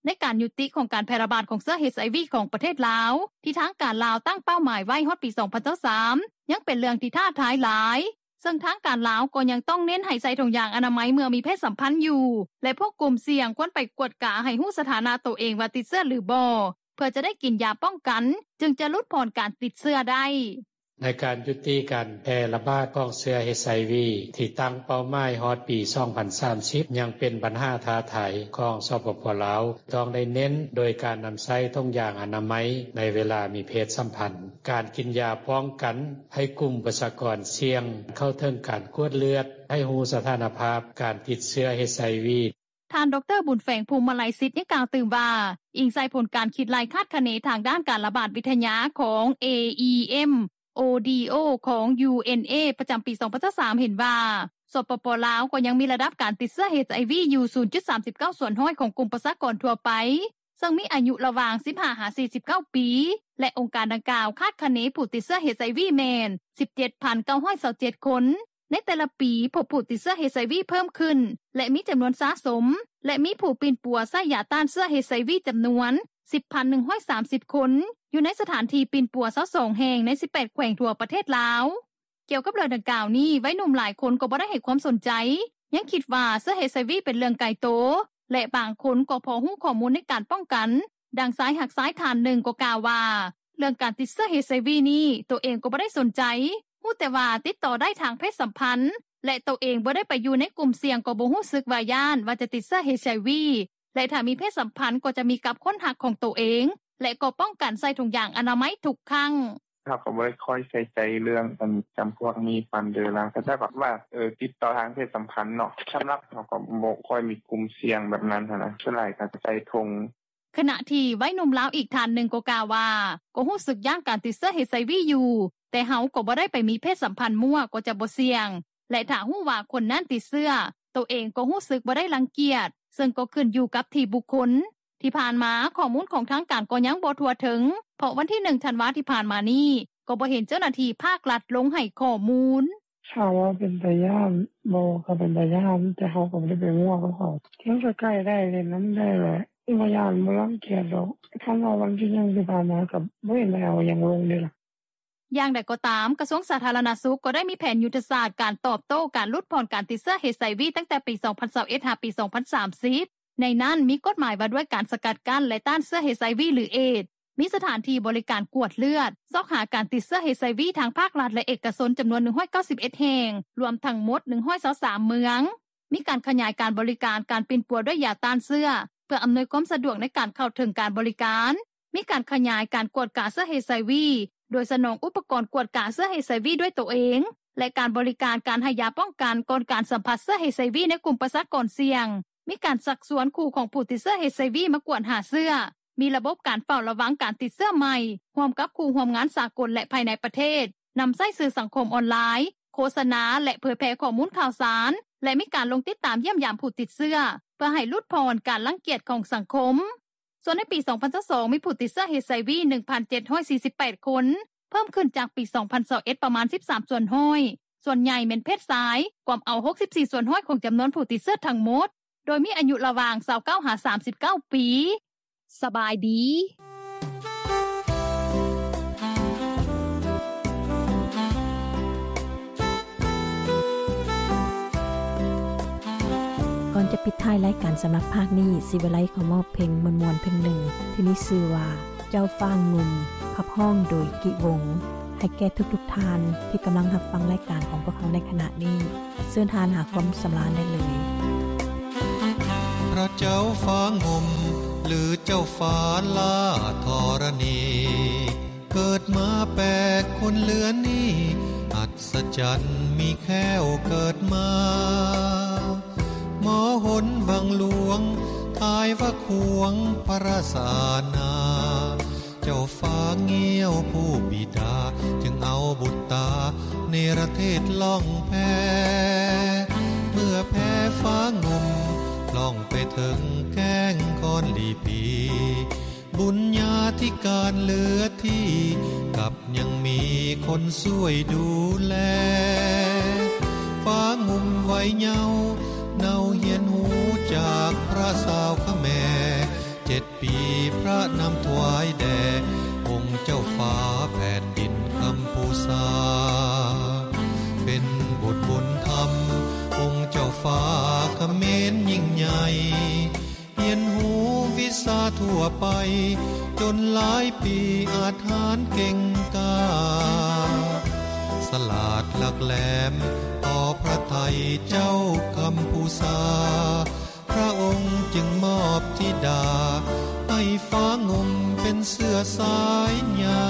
ໃນການຍຸຕິຂອງການແຜ່ລະບາດຂອງເຊື້ອ ເອັດໄອວີ ຂອງປະເທດລາວ ທີ່ທາງການລາວຕັ້ງເປົ້າໝາຍໄວ້ຮອດປີ ສອງພັນຊາວສາມ ຍັງເປັນເລື່ອງທີ່ທ້າທາຍຫຼາຍ, ເຊິ່ງທາງການລາວກໍຍັງຕ້ອງເນັ້ນໃຫ້ໃສ່ຖົງຢາງອະນາໄມເມື່ອມີເພດສຳພັນຢູ່ ແລະ ພວກກຸ່ມສ່ຽງຄວນໄປກວດກາໃຫ້ຮູ້ສະຖານະໂຕເອງວ່າຕິດເຊື້ອ ຫຼື ບໍ່ ເພື່ອຈະໄດ້ກິນຢາປ້ອງກັນ ຈຶ່ງຈະຫຼຸດຜ່ອນການຕິດເຊື້ອໄດ້. ໃນການຍຸຕິການແຜ່ລະບາດຂອງເຊື້ອ ເອັດໄອວີ ທີ່ຕັ້ງເປົ້າໝາຍຮອດປີ ສອງພັນສາມສິບ ຍັງເປັນບັນຫາທ້າທາຍຂອງ ສປປ ລາວ ຕ້ອງໄດ້ເນັ້ນໂດຍການນຳໃຊ້ຖົງຢາງອະນາໄມໃນເວລາມີເພດສຳພັນ, ການກິນຢາປ້ອງກັນໃຫ້ກຸ່ມປະຊາກອນສ່ຽງ, ເຂົ້າເຖິງການກວດເລືອດ, ໃຫ້ຮູ້ສະຖານະພາບການຕິດເຊື້ອ ເອັດໄອວີ. ທ່ານ ດຣ. ບຸນແຝງ ພູມມະໄລສິດ ຍັງກ່າວຕື່ມວ່າ ອີງໃສ່ຜົນການຄິດໄລ່ຄາດຄະເນທາງດ້ານການລະບາດວິທະຍາຂອງ ເອອີເອັມ ໂອດີໂອ ຂອງ ຢູເອັນເອ ປະຈຳປີ ສອງພັນຊາວສາມ ເຫັນວ່າ ສປປ ລາວ ກໍຍັງມີລະດັບການຕິດເຊື້ອ ເອັດໄອວີ ຢູ່ ສູນຈຸດສາມສິບເກົ້າສ່ວນຮ້ອຍຂອງກຸ່ມປະຊາກອນທົ່ວໄປ, ເຊິ່ງມີອາຍຸລະຫວ່າງ ສິບຫ້າ ຫາ ສີ່ສິບເກົ້າປີ ແລະ ອົງການດັ່ງກ່າວຄາດຄະເນຜູ້ຕິດເຊື້ອ ເອັດໄອວີ ແມ່ນ ສິບເຈັດພັນເກົ້າຮ້ອຍຊາວເຈັດຄົນ. ໃນແຕ່ລະປີ ພົບຜູ້ຕິດເຊື້ອ ເອັດໄອວີ ເພີ່ມຂຶ້ນ ແລະ ມີຈຳນວນສະສົມ ແລະ ມີຜູ້ປິ່ນປົວໃຊ້ຢາຕ້ານເຊື້ອ ເອັດໄອວີ ຈຳນວນ ສິບພັນໜຶ່ງຮ້ອຍສາມສິບຄົນ ຢູ່ໃນສະຖານທີ່ປິ່ນປົວ ຊາວສອງແຫ່ງ ໃນ ສິບແປດແຂວງທົ່ວປະເທດລາວ. ກ່ຽວກັບເລື່ອງດັ່ງກ່າວນີ້ ໄວໜຸ່ມຫຼາຍຄົນກໍບໍ່ໄດ້ໃຫ້ຄວາມສົນໃຈ, ຍັງຄິດວ່າເຊື້ອ ເອັດໄອວີ ເປັນເລື່ອງໄກໂຕ ແລະ ບາງຄົນກໍພໍຮູ້ຂໍ້ມູນໃນການປ້ອງກັນ. ດັ່ງຊາຍຮັກຊາຍທ່ານໜຶ່ງກໍກ່າວວ່າ ເລື່ອງການຕິດເຊື້ອ ເອັດໄອວີ ນີ້ ໂຕເອງກໍບໍ່ໄດ້ສົນໃຈ, ຮູ້ແຕ່ວ່າຕິດຕໍ່ໄດ້ທາງເພດສຳພັນ ແລະໂຕເອງບໍ່ໄດ້ໄປຢູ່ໃນກຸ່ມສ່ຽງ ກໍບໍ່ຮູ້ສຶກວ່າຢ້ານວ່າຈະຕິດເຊື້ອ HIV ແລະຖ້າມີເພດສຳພັນ ກໍຈະມີກັບຄົນຮັກຂອງໂຕເອງ ແລະກໍປ້ອງກັນໃສ່ຖົງຢາງອະນາໄມທຸກຄັ້ງ. ເຮົາກໍບໍ່ໄດ້ຄ່ອຍໃສ່ໃຈເລື່ອງອັນຈຳພວກນີ້ປານໃດລະ ກໍແຕ່ແບບວ່າຕິດຕໍ່ທາງເພດສຳພັນເນາະ ສຳລັບເຮົາກໍບໍ່ຄ່ອຍມີກຸ່ມສ່ຽງແບບນັ້ນຫັ້ນນະ ສ່ວນຫຼາຍກໍໃສ່ຖົງ. ຂະນະທີ່ໄວໜຸ່ມລາວອີກທ່ານໜຶ່ງກໍກ່າວວ່າ ກໍຮູ້ສຶກຢ້ານການຕິດເຊື້ອ HIV ຢູ່ ແຕ່ເຮົາກໍບໍ່ໄດ້ໄປມີເພດສຳພັນມົ້ວ ກໍຈະບໍ່ສ່ຽງ ແລະຖ້າຮູ້ວ່າຄົນນັ້ນຕິດເຊື້ອ ໂຕເອງກໍຮູ້ສຶກບໍ່ໄດ້ລັງກຽດ ເຊິ່ງກໍຂຶ້ນຢູ່ກັບທີ່ບຸກຄົນ. ທີ່ຜ່ານມາຂໍ້ມູນຂອງທາງການກໍຍັງບໍ່ທົ່ວເຖິງ ເພາະວັນທີໜຶ່ງທັນວາທີ່ຜ່ານມານີ້ ກໍບໍ່ເຫັນເຈົ້າໜ້າທີ່ພາກລັດລົງໃຫ້ຂໍ້ມູນ. ຖາມວ່າເປັນຕາຢ້ານບໍ່ ກໍເປັນຕາຢ້ານ ແຕ່ເຮົາກໍບໍ່ໄດ້ໄປມົ້ວກັບເຂົາ ມັນກໍໃກ້ໄດ້ ຫຼິ້ນນຳໄດ້ແຫຼະ ບໍ່ຢ້ານບໍ່ລັງກຽດດອກ ຄັນວ່າວັນທີໜຶ່ງທີ່ຜ່ານມາ ກໍບໍ່ເຫັນໄດ້ເອົາຫຍັງລົງເດລະ. ຢ່າງໃດກໍຕາມ ກະຊວງສາທາລະນະສຸກ ກໍໄດ້ມີແຜນຍຸດທະສາດການຕອບໂຕ້ການຫຼຸດຜ່ອນການຕິດເຊື້ອ HIV ຕັ້ງແຕ່ປີສອງພັນຊາວເອັດ ຫາປີສອງພັນສາມສິບ ໃນນັ້ນມີກົດໝາຍວ່າດ້ວຍການສະກັດກັ້ນ ແລະຕ້ານເຊື້ອ HIV ຫຼື ເອດ, ມີສະຖານທີ່ບໍລິການກວດເລືອດ ຊອກຫາການຕິດເຊື້ອ HIV ທາງພາກລັດ ແລະເອກະຊົນ ຈຳນວນໜຶ່ງຮ້ອຍເກົ້າສິບເອັດແຫ່ງ ລວມທັງໝົດໜຶ່ງຮ້ອຍຊາວສາມເມືອງ, ມີການຂະຫຍາຍການບໍລິການການປິ່ນປົວດ້ວຍຢາຕ້ານເຊື້ອ ເພື່ອອຳນວຍຄວາມສະດວກໃນການເຂົ້າເຖິງການບໍລິການ, ມີການຂະຫຍາຍການກວດກາເຊື້ອ HIV ໂດຍສະໜອງອຸປະກອນກວດກາເຊື້ອ HIV ດ້ວຍໂຕເອງ ແລະການບໍລິການການໃຫ້ຢາປ້ອງກັນກ່ອນການສຳຜັດເຊື້ອ HIV ໃນກຸ່ມປະຊາກອນສ່ຽງ, ມີການຊັກຊວນຄູ່ຂອງຜູ້ຕິດເຊື້ອ HIV ມາກວດຫາເຊື້ອ, ມີລະບົບການເຝົ້າລະວັງການຕິດເຊື້ອໃໝ່ ຮ່ວມກັບຄູ່ຮ່ວມງານສາກົນ ແລະ ພາຍໃນປະເທດ, ນຳໃຊ້ສື່ສັງຄົມອອນລາຍ, ໂຄສະນາ ແລະ ເຜີຍແຜ່ຂໍ້ມູນຂ່າວສານ ແລະ ມີການລົງຕິດຕາມຢ້ຽມຢາມຜູ້ຕິດເຊື້ອ ເພື່ອໃຫ້ຫຼຸດຜ່ອນການລັງກຽດຂອງສັງຄົມ. ສ່ວນໃນປີສອງພັນຊາວສອງ ມີຜູ້ຕິດເຊື້ອ HIV ໜຶ່ງພັນເຈັດຮ້ອຍສີ່ສິບແປດຄົນ, ເພີ່ມຂຶ້ນຈາກປີສອງພັນຊາວເອັດປະມານສິບສາມສ່ວນຮ້ອຍ, ສ່ວນໃຫຍ່ແມ່ນເພດຊາຍ, ກວມເອົາຫົກສິບສີ່ສ່ວນຮ້ອຍຂອງຈຳນວນຜູ້ຕິດເຊື້ອທັງໝົດ, ໂດຍມີອາຍຸລະຫວ່າງຊາວເກົ້າຫາສາມສິບເກົ້າປີ. ສະບາຍດີ. ກ່ອນຈະປິດທ້າຍລາຍການສຳລັບພາກນີ້, ສີວິໄລຂໍມອບເພງມ່ວນໆເພງໜຶ່ງ ທີ່ມີຊື່ວ່າ ເຈົ້າຟ້າງຸ່ມ, ຂັບຮ້ອງໂດຍ ກິວົງ ໃຫ້ແກ່ທຸກໆທ່ານທີ່ກຳລັງຮັບຟັງລາຍການຂອງພວກເຮົາໃນຂະນະນີ້. ເຊີນທ່ານຫາຄວາມສຳລານໄດ້ເລີຍ. ພະເຈົ້າຟ້າງຸ່ມ ຫຼື ເຈົ້າຟ້າຫຼ້າທໍລະນີ ເກີດມາແປກຄົນເລືອນນີ້ ອັດສະຈັນມີແຄ້ວເກີດມາ ມໍຫົນວັງຫຼວງ ທ້າຍວ່າຂວງພະລາຊາອານາ ເຈົ້າຟ້າງຽວຜູ້ບິດາ ຈຶ່ງເອົາບຸດຕາເນລະເທດລ່ອງແພ ເມື່ອແພຟ້າງຸ່ມລ່ອງໄປເຖິງແກ້ງຄອນລີພີ ບຸນຍາທິການເຫຼືອທີ່ ກັບຍັງມີຄົນຊ່ວຍດູແລ ຟ້າງຸ່ມໄວເຍົາ ເນົາຮຽນຮູ້ຈາກພະສາວຂະແມ ເຈັດປີພະນຳຖວາຍແດ່ ອົງເຈົ້າຟ້າແຜ່ນດິນກຳພູຊາ ເປັນບຸດບຸນທຳ ອົງເຈົ້າຟ້າຂະເໝນຍິ່ງໃຫຍ່ ຮຽນຮູ້ວິຊາທົ່ວໄປ ຈົນຫຼາຍປີອາດຫານເກັ່ງກ້າ ສະຫຼາດຫຼັກແຫຼມຕໍ່ພະໄທເຈົ້າກຳພູຊາ ພະອົງຈຶ່ງມອບທິດາ ໃຫ້ຟ້າງຸ່ມເປັນເຊື້ອສາຍໃຫຍ່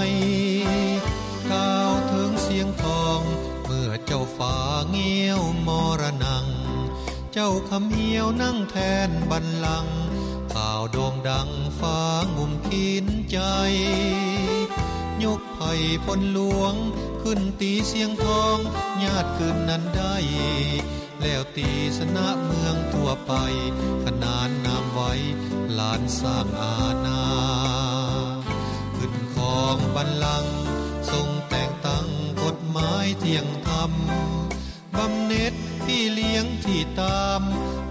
ກ່າວເຖິງຊຽງທອງ ເມື່ອເຈົ້າຟ້າງຽວມໍລະນັງ ເຈົ້າຄຳຫ້ຽວນັ່ງແທນບັນລັງ ຂ່າວໂດ່ງດັງຟ້າງຸ່ມຂີນໃຈ ຍົກໄພພົນຫຼວງຂຶ້ນຕີຊຽງທອງ ຍາດຄືນນັ້ນໄດ້ ແລ້ວຕີຊະນະເມືອງທົ່ວໄປ ຂະໜານນາມໄວຫຼານສ້າງອານາ ຂຶ້ນຄອງບັນລັງ ຊົງແຕ່ງຕັ້ງກົດໝາຍທ່ຽງທຳ ບຳເນັດພີ່ລ້ຽງທີ່ຕາມ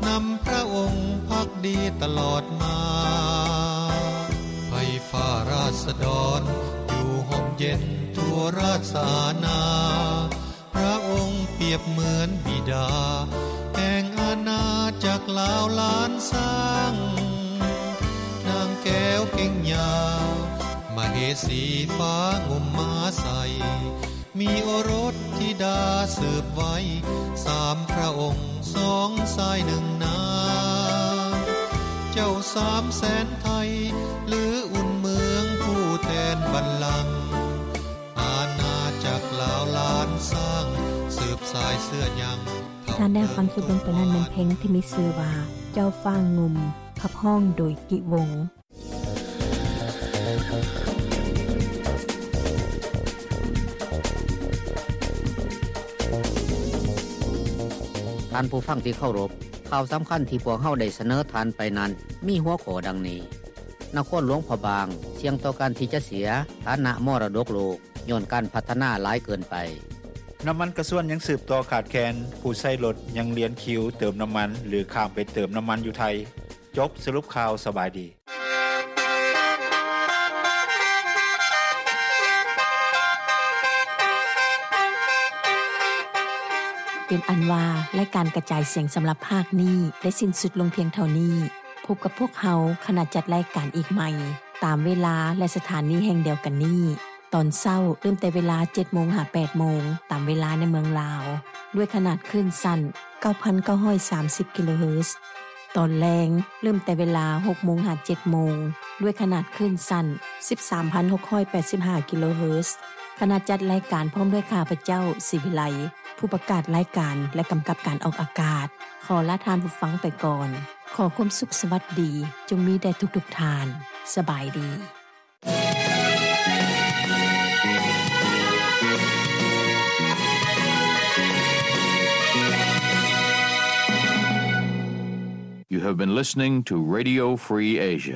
ນຳພະອົງພັກດີຕະຫຼອດມາ ໃຫ້ຟ້າລາຊະດອນຢູ່ຮົ່ມເຢັນທົ່ວລາຊະອານາ ພະອົງປຽບເໝືອນບິດາ ແຫ່ງອານາຈັກລາວລ້ານຊ້າງ ນາງແກ້ວເກັງຍາວ ມະເຫສີຟ້າງຸ່ມມາໃສ່ ມີໂອລົດທິດາສືບໄວ້ ສາມພະອົງສອງຊາຍໜຶ່ງນາງ ເຈົ້າສາມແສນໄທ ຫຼືອຸ່ນເມືອງຜູ້ແທນບັນລັງ ອານາຈັກລາວລ້ານຊ້າງ ສືບສາຍເຊື້ອຍັງ. ທ່ານໄດ້ຮັບຟັງຈົບລົງໄປນັ້ນແມ່ນເພງທີ່ມີຊື່ວ່າ ເຈົ້າຟ້າງຸ່ມ ຂັບຮ້ອງໂດຍ ກິວົງ. ທ່ານຜູ້ຟັງທີ່ເຄົາລົບ, ຂ່າວສຳຄັນທີ່ພວກເຮົາໄດ້ສະເໜີທ່ານໄປນັ້ນ ມີຫົວຂໍ້ດັ່ງນີ້: ນະຄອນຫຼວງພະບາງ ສ່ຽງຕໍ່ການທີ່ຈະເສຍຖານະມໍລະດົກໂລກ ຍ້ອນການພັດທະນາຫຼາຍເກີນໄປ. ນ້ຳມັນກະຊວນຍັງສືບຕໍ່ຂາດແຄນ, ຜູ້ໃຊ້ລົດຍັງລຽນຄິວເຕີມນ້ຳມັນ ຫຼື ຂ້າມໄປເຕີມນ້ຳມັນຢູ່ໄທ. ຈົບສະຫຼຸບຂ່າວ, ສະບາຍດີ. ເປັນອັນວ່າ ລາຍການກະຈາຍສຽງສຳລັບພາກນີ້ ໄດ້ສິ້ນສຸດລົງພຽງເທົ່ານີ້. ພົບກັບພວກເຮົາ ຂະນະຈັດລາຍການອີກໃໝ່ ຕາມເວລາ ແລະ ສະຖານີແຫ່ງດຽວກັນນີ້. ຕອນເຊົ້າ ເລີ່ມແຕ່ເວລາເຈັດໂມງຫາແປດໂມງ ຕາມເວລາໃນເມືອງລາວ ດ້ວຍຂະໜາດຄື້ນສັ້ນ ເກົ້າພັນເກົ້າຮ້ອຍສາມສິບ ກິໂລເຮີດ. ຕອນແລງ ເລີ່ມແຕ່ເວລາຫົກໂມງຫາເຈັດໂມງ ດ້ວຍຂະໜາດຄື້ນສັ້ນ ສິບສາມພັນຫົກຮ້ອຍແປດສິບຫ້າ ກິໂລເຮີດ. ຄະນະຈັດລາຍການພ້ອມດ້ວຍຂ້າພະເຈົ້າ ສີວິໄລ ຜູ້ປະກາດລາຍການ ແລະ ກຳກັບການອອກອາກາດ ຂໍລາທ່ານຜູ້ຟັງໄປກ່ອນ. ຂໍຄວາມສຸກສະຫວັດດີ ຈົ່ງມີແດ່ທຸກໆທ່ານ. ສະບາຍດີ. You have been listening to Radio Free Asia.